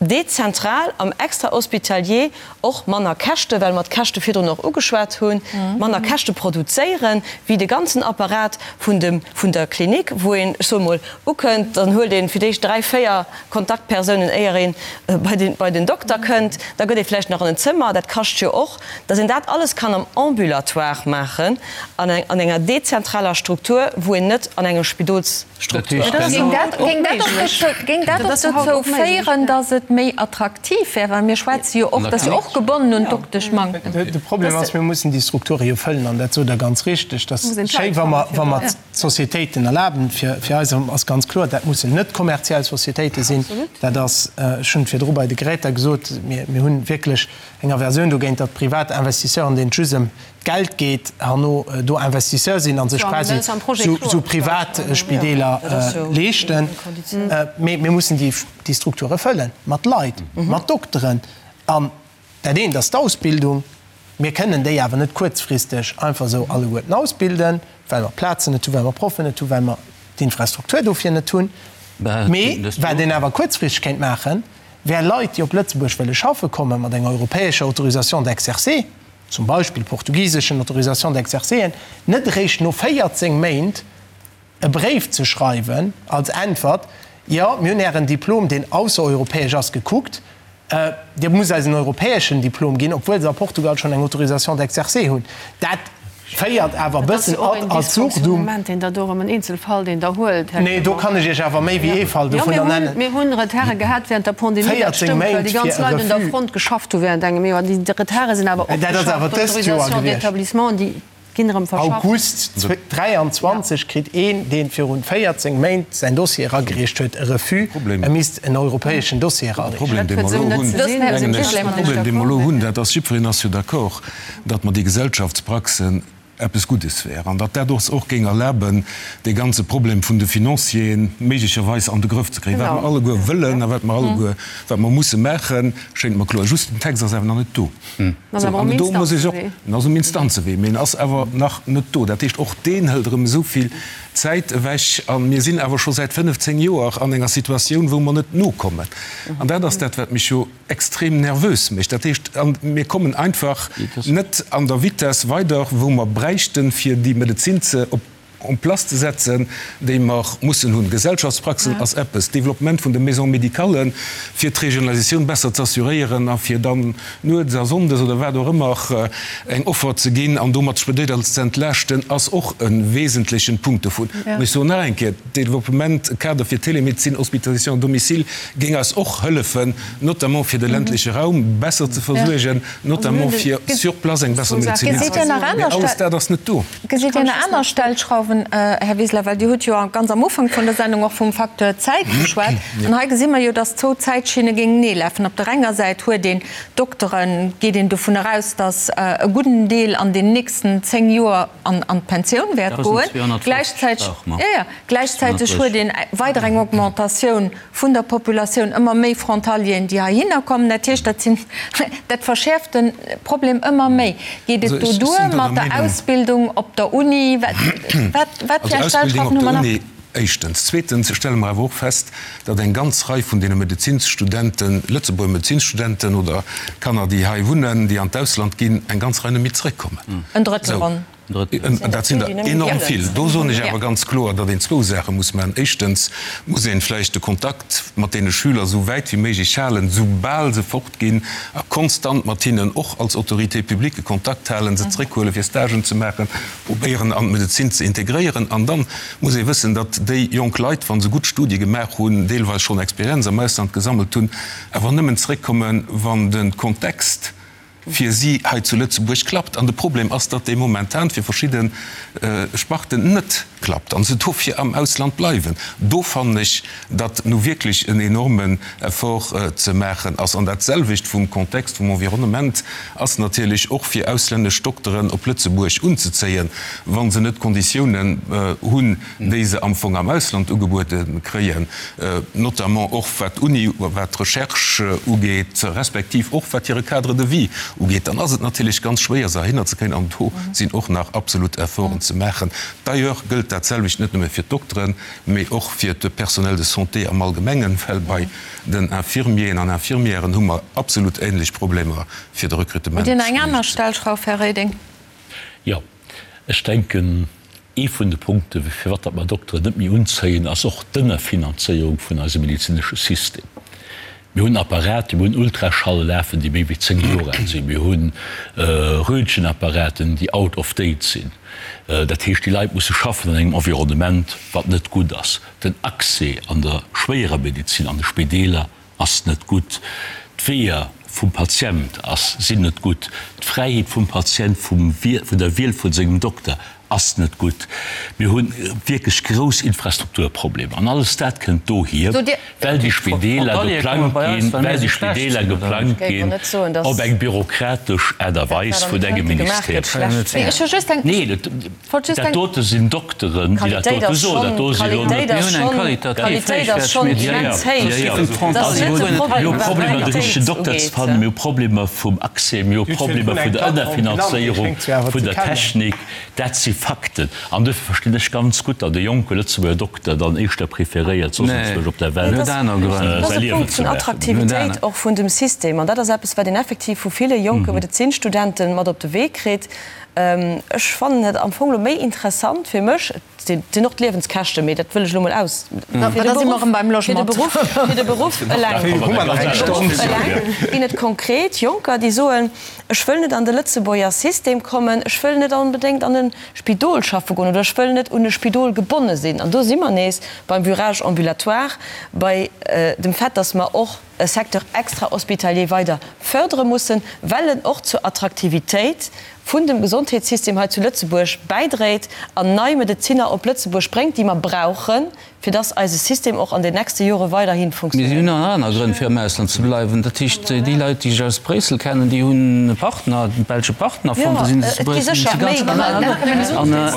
dezentral am Extrahospitalier och manner Käschte, well mer d'Käschte virdrun och ugeschwat hunn, manner Käschte produzéieren, wéi de ganzen Apparat vun dem, vun der Klinik, wou een, ech soe mol, ukënnt, dann huelt ee fir d'éischt 3, 4 Kontaktpersounen, éier ee bei den, bei den Dokter kënnt, da gëtt ee vläicht nach an en Zëmmer, dat kascht jo och, dass een dat alles kann am Ambulatoire maachen, an an enger dezentraler Struktur, wou een net an enger Spidols. Struktur. Géing dat och dozou féieren, datt et méi attraktiv wär? Well mir schwätze jo och, dat ass jo och gebonnen un d'Dokteschmanktem. De Problem ass, mir mussen déi Strukture jo fëllen an dat sot Der ganz richteg. Dat ass schéi, wa mer, wa mer d'Sociétéiten erlaben. Fir, fir eis ass ganz kloer, dat mussen net kommerziell Sociétéite sinn. Dat ass, ech hunn et virdru bei de Geräter gesot, mir, mir hunn wierklech eng Aversioun dogéint, datt privat Investisseuren, deenen et just ëm d'Geld geet, herno do Investisseur sinn a sech quasi esou privat Spideeler leeschten. Mee mir mussen déi Strukture fëllen mat Leit, mat Dokteren. An dat eent ass d'Ausbildung. Mir kënnen déi awer net kuerzfristeg einfach esou alleguerten ausbilden, well mer Plazen net hunn, well mer Proffen net hunn, well mer d'Infrastruktur dofir net hunn. Mee wat een awer kuerzfristeg kéint maachen, wär Leit, déi op Lëtzebuerg wëlle schaffe kommen, mat enger europäescher Autorisation d'exercer, zum Beispill portugiseschen Autorisation d'exercéen, net eréischt no 14 Méint e Bréif ze schreiwen als Äntwert, Jo, mir hunn Ären Diplom, deen aussereuropäesch ass, gekuckt, Dir musst eis en europäeschen Diplom ginn, obwuel se a Portugal schonn eng Autorisation d'exercer hunn. Dat féiert awer e bëssen ad absurdum. Nee, do kann ech Iech awer méi wéi ee Fall dovunner nennen. 14 Méint fir e Refus. Dat ass awer dëst Joer gewiescht. August 23 kritt een, dee virun 14 Méint säin Dossier eragereecht huet, e Refus, e misst en europäeschen Dossier erareechen. De Problem, dee mer elo hunn, dat ass, jiddwereen ass jo d'accord, datt mer déi Gesellschaftspraxen eppes Guddes wär an datt dat ons och géing erlaben, dee ganze Problem vun de Financieren méiglecherweis an de Grëff ze kréien. Wat mer alleguer wëllen a wat mer alleguer, wat mer musse maachen, schéngt mer kloer. Just den Text ass awer nach net do. Sou, an do muss ech och, en ass um Instanzewee, mee en ass awer nach net do. Dat heescht, och deen hëlt erëm esou vill Zäit ewech. A mir sinn awer scho säit 15 Joer an enger Situatioun, wou mer net nokommen. An dat ass dat, wat mech jo extrem nervös mécht. Dat heescht, mir kommen einfach net an der Vitess weider, wou mer bräichten, fir déi Medezin ze op en place ze setzen, déi mer mussen hunn. Gesellschaftspraxen ass eppes, Développement vun de Maisons médicales, fir d'Regionalisatioun besser ze assuréieren a fir dann nuets a sonndes oder wat och ëmmer eng Offer ze ginn an domat d'Spidéler ze entlaaschten, ass och e wesentlechen Punkt dovun. An ech soen nach eng Kéier, Développement Kader fir Télémédecine, Hospitalisation à domicile géing eis och hëllefen, notamment fir de ländleche Raum besser ze versuergen, notamment fir sur place eng besser Medezin hinzekréien. Mee alles dat ass net do. Gesitt Dir nach aner Stellschrauwen, Här Wiseler? Well Dir hutt jo ganz am Ufank vun der Sendung och vum Facteur Zäit geschwat. An hei gesi mer jo, dass zwou Zäitschinne géingenee lafen. Op der enger Säit huet een Dokteren, geet een dovun eraus, dass e gudden Deel an den nächsten 10 Joer an d'Pensioun wäert goen. Gläichzäiteg huet een weider eng Augmentatioun vun der Populatioun, ëmmer méi Frontalieren, déi heihinner kommen. Dat heescht, dat sinn, dat verschäerft de Problem ëmmer méi. Geet et do duer mat der Ausbildung op der Uni? Wat, wat fir eng Stellschrauwen hu mer nach? Éischtens. Zweetens stelle mer awer och fest, datt eng ganz Rei vun deene Medezinsstudenten, Lëtzebuerger Medezinsstudenten oder Kanner, déi hei wunnen, déi an d'Ausland ginn, eng ganz Rei net méi zrëckkommen. En Drëttel ronn. Dat sinn der enorm vill. Do soen ech awer ganz kloer, datt een zwou Saache muss maachen. Éischtens muss een vläicht de Kontakt mat deene Schüler esou wäit wéi méiglech halen, soubal se fortginn, a konstant mat hinnen och als Autorité publique Kontakt halen, se zréckhuelen, fir Stagen ze maachen, probéieren an d'Medezin ze integréieren. An da muss ee wëssen, datt déi jonk Leit, wa se gutt Studie gemaach hunn, deelweis schonn Experienz am Ausland gesammelt hunn, awer nëmmen zréckkommen, wann de Kontext fir si hei zu Lëtzebuerg klappt. An de Problem ass, datt dee momentan fir verschidde Sparten net klappt a se dofir am Ausland bleiwen. Do fannen ech, datt nu wierklech en enormen Effort ze maachen ass. An dat selwecht vum Kontext, vum Environnement ass natierlech och fir auslännesch Dokteren op Lëtzebuerg unzezéien, wa se net d'Konditiounen hunn, déi se am Fong am Ausland ugebuede kréien, notamment och wat d'Uni, wat d'Recherche ugeet, respektiv och wat hire Cadre de vie. ugeet, dann ass et natierlech ganz schwéier, se heihinner ze kréien. An do sinn och nach absolut Efforten ze maachen. D'ailleurs gëllt dat selwecht net nëmme fir d'Dokteren, mee och fir de Personnel de santé am Allgemengen, well bei den Infirmieren an Infirmièren hu mer absolut ähnlech Problemer fir de Recrutement. Hutt Dir nach eng aner Stellschrauf, Här Reding? Jo, ech denken, ee vun de Punkten, firwat datt mer Dokteren net méi unzéien, ass och d'Ënnerfinanzéierung vun eisem medezinesche System. Mir hunn Apparaten, mir hunn Ultraschalle lafen, déi méi wéi 10 Joer al sinn. Mir hu Röntgenapparaten, déi out of date sinn. Dat heescht, déi Leit musse schaffen an engem Environnement, wat net gutt ass. Den Accès an der schwéierer Medezin, an de Spideeler ass net gutt. D'Weeër vum Patient ass, sinn net gutt. D'Fräiheet vum Patient vum, vun der Wiel vu sengem Dokter ass net gutt. Mir hu wierklech grouss Infrastrukturproblemer. An alles dat kënnt dohier, well déi Spideeler geplangt ginn, well déi Spideeler geplangt ginn op eng bürokratesch Aart a Weis vun engem Ministère. Nee, dat dote sinn Dokteren, déi dat dote soen. Dat do si lo net. Mir hu Problemer, de richtegen Dokter ze fannen. Mir hu Problemer vum Accès. Mir hu Problemer vun der Ënnerfinanzéierung vun der Technik. Dat si Fakten. An duerfir verstinn ech ganz gutt, datt e jonke Lëtzebuerger Dokter dann éischter preferéiert, soss enzwousch op der Welt säi Liewen ze maachen. Attraktivitéit och vun dem System. An dat ass eppes, wat een effektiv vu ville jonke Medezinstudenten mat op de Wee kritt. Ech fannen et am Fong elo méi interessant fir mech, et sinn och d'Liewenskäschten, mee dat wëll ech elo mol aus, fir de Beruff, fir de Beruff eleng ginn et konkret Jonker, déi soen, Ech wëll net an de Lëtzebuerger System kommen, ech wëll net onbedéngt an e Spidol schaffe goen oder ech wëll net un e Spidol gebonne sinn. An do si mer nees beim Virage ambulatoire, bei dem Fait, dass mer och e Secteur extra-hospitalier weider fördere mussen, well en och zur Attraktivitéit vun dem Gesondheetssystem hei zu Lëtzebuerg bäidréit an nei Medezinner op Lëtzebuerg bréngt, déi mer brauchen, fir dass eise System och an den nächste Jore weiderhi Mee si funktionéiert. hunn nach aner Grënn fir am Ausland ze bleiwen. Dat heescht, déi Leit, déi ech aus Bréissel kennen, déi hunn e Partner, e belsche Partner fonnt, da sinn se zu Et gi Bréissel. sécher méi Grënn. An, an.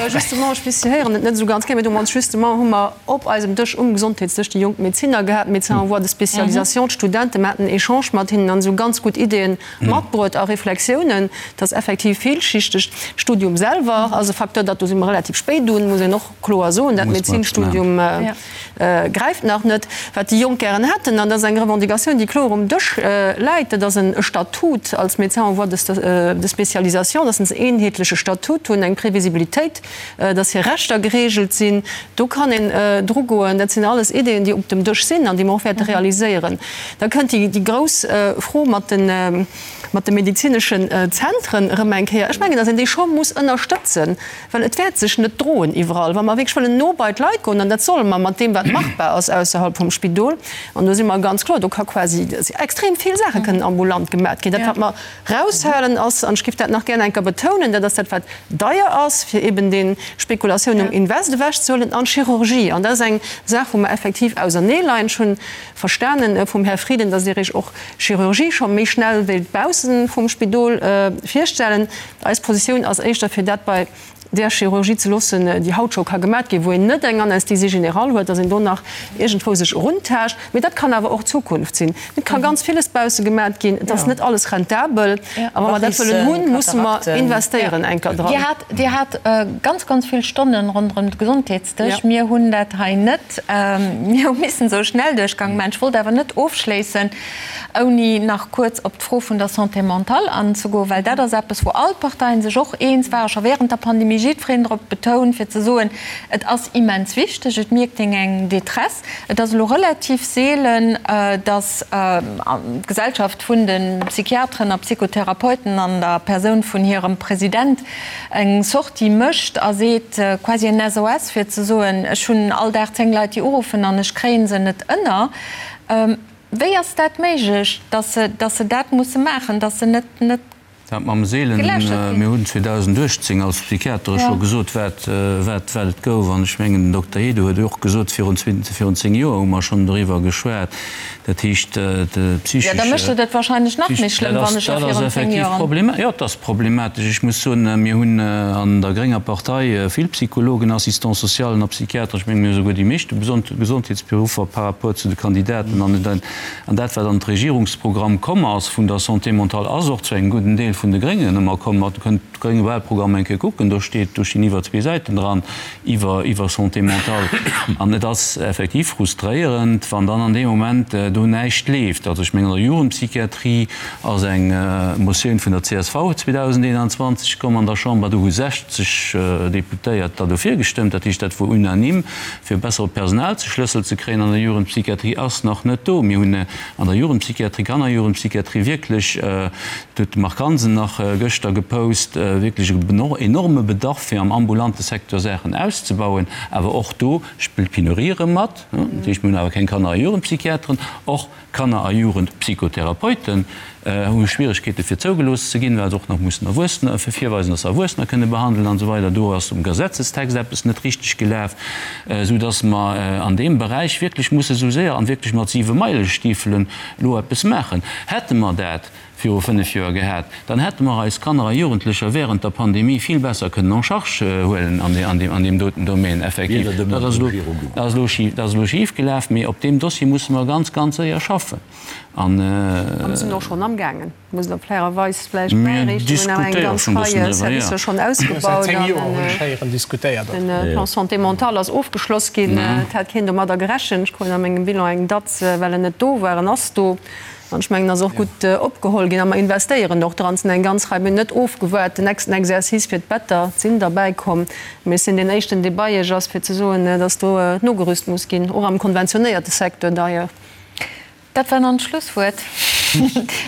Justement, ech weess, Sie héieren et net esou ganz gär, mee do hu mer ons justement, hu mer op eisem Dësch, um Gesondheetsdësch, déi jonk Medezinner gehat, Médecins en voie de spécialisation, d'Studenten, mer haten en Echange mat hinnen an esou ganz gutt Ideeën matbruet a Reflexiounen. Et ass effektiv villschichteg. D'Studium selwer ass e Facteur, dat do si mer relativ spéit un, muss een och kloer soen, dat Medezinstudium gräift nach net. Wat déi Jonk gären hätten, an dat ass eng Revendicatioun, déi kloer um Dësch läit, dat ass e Statut als Médecin en voie de spécialisation, dass se en eenheetleche Statut hunn, eng Previsibilitéit, dass hir Rechter geregelt sinn. Do kann een drugoen. Dat sinn alles Ideeën, déi op dem Dësch sinn an déi mer och wäerte realiséieren. Da kënnt déi grouss Fro mat de mat de medezineschen Zentren erëm eng Kéier. Ech mengen, dass een déi scho muss ënnerstëtzen, well et wäert sech net droen iwwerall. Wa mer wierklech wëllen no bei d'Leit goen, an dat solle mer mat deem, wat machbar ass ausserhalb vum Spidol, an do si mer ganz kloer, do ka quasi extrem vill Saache kënnen ambulant gemat ginn. Dat, wat mer raushalen ass, an ech géif dat nach gär eng Kéier betounen, dat ass dat, wat deier ass, fir eben déi Spekulatioun um Invest ewechzehuelen, an d'Chirurgie. An dat ass eng Saach, wou mer effektiv auserneeleien. Ech hunn verstanen vum Här Frieden, dass Dir Iech och Chirurgie scho méi schnell wéilt bausse vum Spidol virstellen. Eis Positioun ass éischter, fir dat bei där Chirurgie ze loossen, déi haut scho ka gemat ginn, wou een net eng Anesthésie générale huet, dass een do nach iergendwou sech eruntaascht. Mee dat kann awer och d'Zukunft sinn. Et ka ganz villes bausse gemat ginn. Et ass net alles rentabel. A wa mer dat wëllen hunn, musse mer investéieren enker dran. Dir hat ganz, ganz vill Stonnen ronderëm de Gesondheetsdësch. Mir hunn dat hei net. Mir hu missen esou Schnellduerchgang maachen. Ech wollt awer net ofschléissen, ouni nach kuerz op d'Fro vun der Santé mentale anzegoen, well dat ass eppes, wou all d'Parteien sech och eens waren, scho während der Pandemie, jiddwereen drop betount, fir ze soen, et ass immens wichteg, et mierkt een eng Détresse. Et ass elo relativ seelen, datt d'Gesellschaft vun de Psychiateren a Psychotherapeuten an der Persoun vun hirem President eng Sortie mécht a seet, quasi en SOS, fir ze soen, ech hunn all Dag 10 Leit, déi uruffen an ech kréie se net ënner. Wéi ass dat méiglech, datt se, datt se dat musse maachen, datt se net, net. Dat mam Seelen, mir hunn 2018 als Psychiatere scho gesot, wat, wat, wat et gouf. An ech mengen, den Dokter Hede huet och gesot, virun, virun 10 Joer hu mer schonn doriwwer geschwat. Dat heescht, de psychesche. Jo, da mécht et et wahrscheinlech nach méi schlëmm, wann ech scho virun 10 Joer. Jo, et ass problematesch. Ech muss soen, mir hunn an der grénger Partei vill Psychologen, Assistants socialen a Psychiater. Ech mengen, mir hu souguer déi meeschte Gesondheetsberuffer par rapport zu de Kandidaten. An An dat, wat an d'Regierungsprogramm komm ass vun der Santé mentale, ass och zu engem gudden Deel vun de Gréngen ëmmer komm. Dir kënnt de grénge Wahlprogramm eng Kéier kucken, do steet, do stinn iwwer zwee Säiten dran iwwer, iwwer Santé mentale. An et ass effektiv frustréierend, wann dann an deem Moment do näischt leeft. Also ech mengen, an der Jugendpsychiatrie ass eng Motioun vun der csv 2021 komm an der Chamber, do hu 60 Deputéiert der dofir gestëmmt, dat heescht, dat wor unanime. fir e bessere Personalzeschlëssel ze kréien an der Jugendpsychiatrie, ass nach net do. Mir hunn an der Jugendpsychiatrie, Kannerjugendpsychiatrie wierklech, dat huet de Marc Hansen nach gëschter gepost, wierklech e enorme Bedarf, fir am ambulante Secteur Saachen auszebauen. Awer och do spillt d'Penurie erëm mat. Dat heescht, mir hunn awer keng Kanner a Jugendpsychiateren. Och Kanner a Jugendpsychotherapeuten hu Schwieregkeete fir zougelooss ze ginn, well se och nach mussen Erwuessener virweisen, datt se Erwuessener kënne behandelen an esou weider. Do ass um Gesetzestext eppes net richteg gelaf, esou datt mer an deem Beräich wierklech musse sou séier an wierklech mat Siwemeilestiefelen elo eppes maachen. Hätte mer dat viru 5 Joer gehat, dann hätte mer eis Kanner a Jugendlecher während der Pandemie vill besser kënnen en charge huelen an deem doten Domaine. Effektiv, dat ass elo schif gelaf, mee op deem Dossier musse mer ganz, ganz séier schaffen. A mir sinn och schonn amgaangen, muss elo fairerweis vläicht bäiriichten, mir hunn awer eng ganz Rei Servicer schonn ausgebaut an de Plan santé mentale ass ofgeschloss ginn. Et hat keen domadder gerechent. Ech krut a mengem Bilan eng Datz, well en net do war. En ass do. An ech mengen, ass och gutt opgeholl ginn. A mer investéieren och dran. Et sinn eng ganz Rei, mir hunn net ofgewaart, den nächsten Exercice fir d'Better sinn derbäikomm. Mee ech sinn deen éischten, dee bei Iech ass, fir ze soen, dass do nogerüst muss ginn, och am konventionéierte Secteur d'ailleurs. Dat war dann d'Schlusswuert.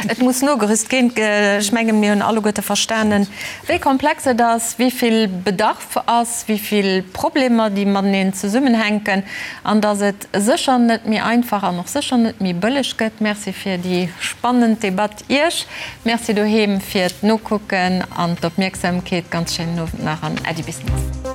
Et muss nogerüst ginn. Ech mengen, mir hunn alleguerte verstanen, wéi komplex et ass, wéi vill Bedarf ass, wéi vill Problemer, déi mateneen zesummenhänken, an dass et sécher net méi einfach an och sécher net méi bëlleg gëtt. Merci fir déi spannend Debatt Iech. Merci doheem fir d'Nokucken an d'Opmierksamkeet. Ganz schéinen Owend nach an Äddi bis nächst.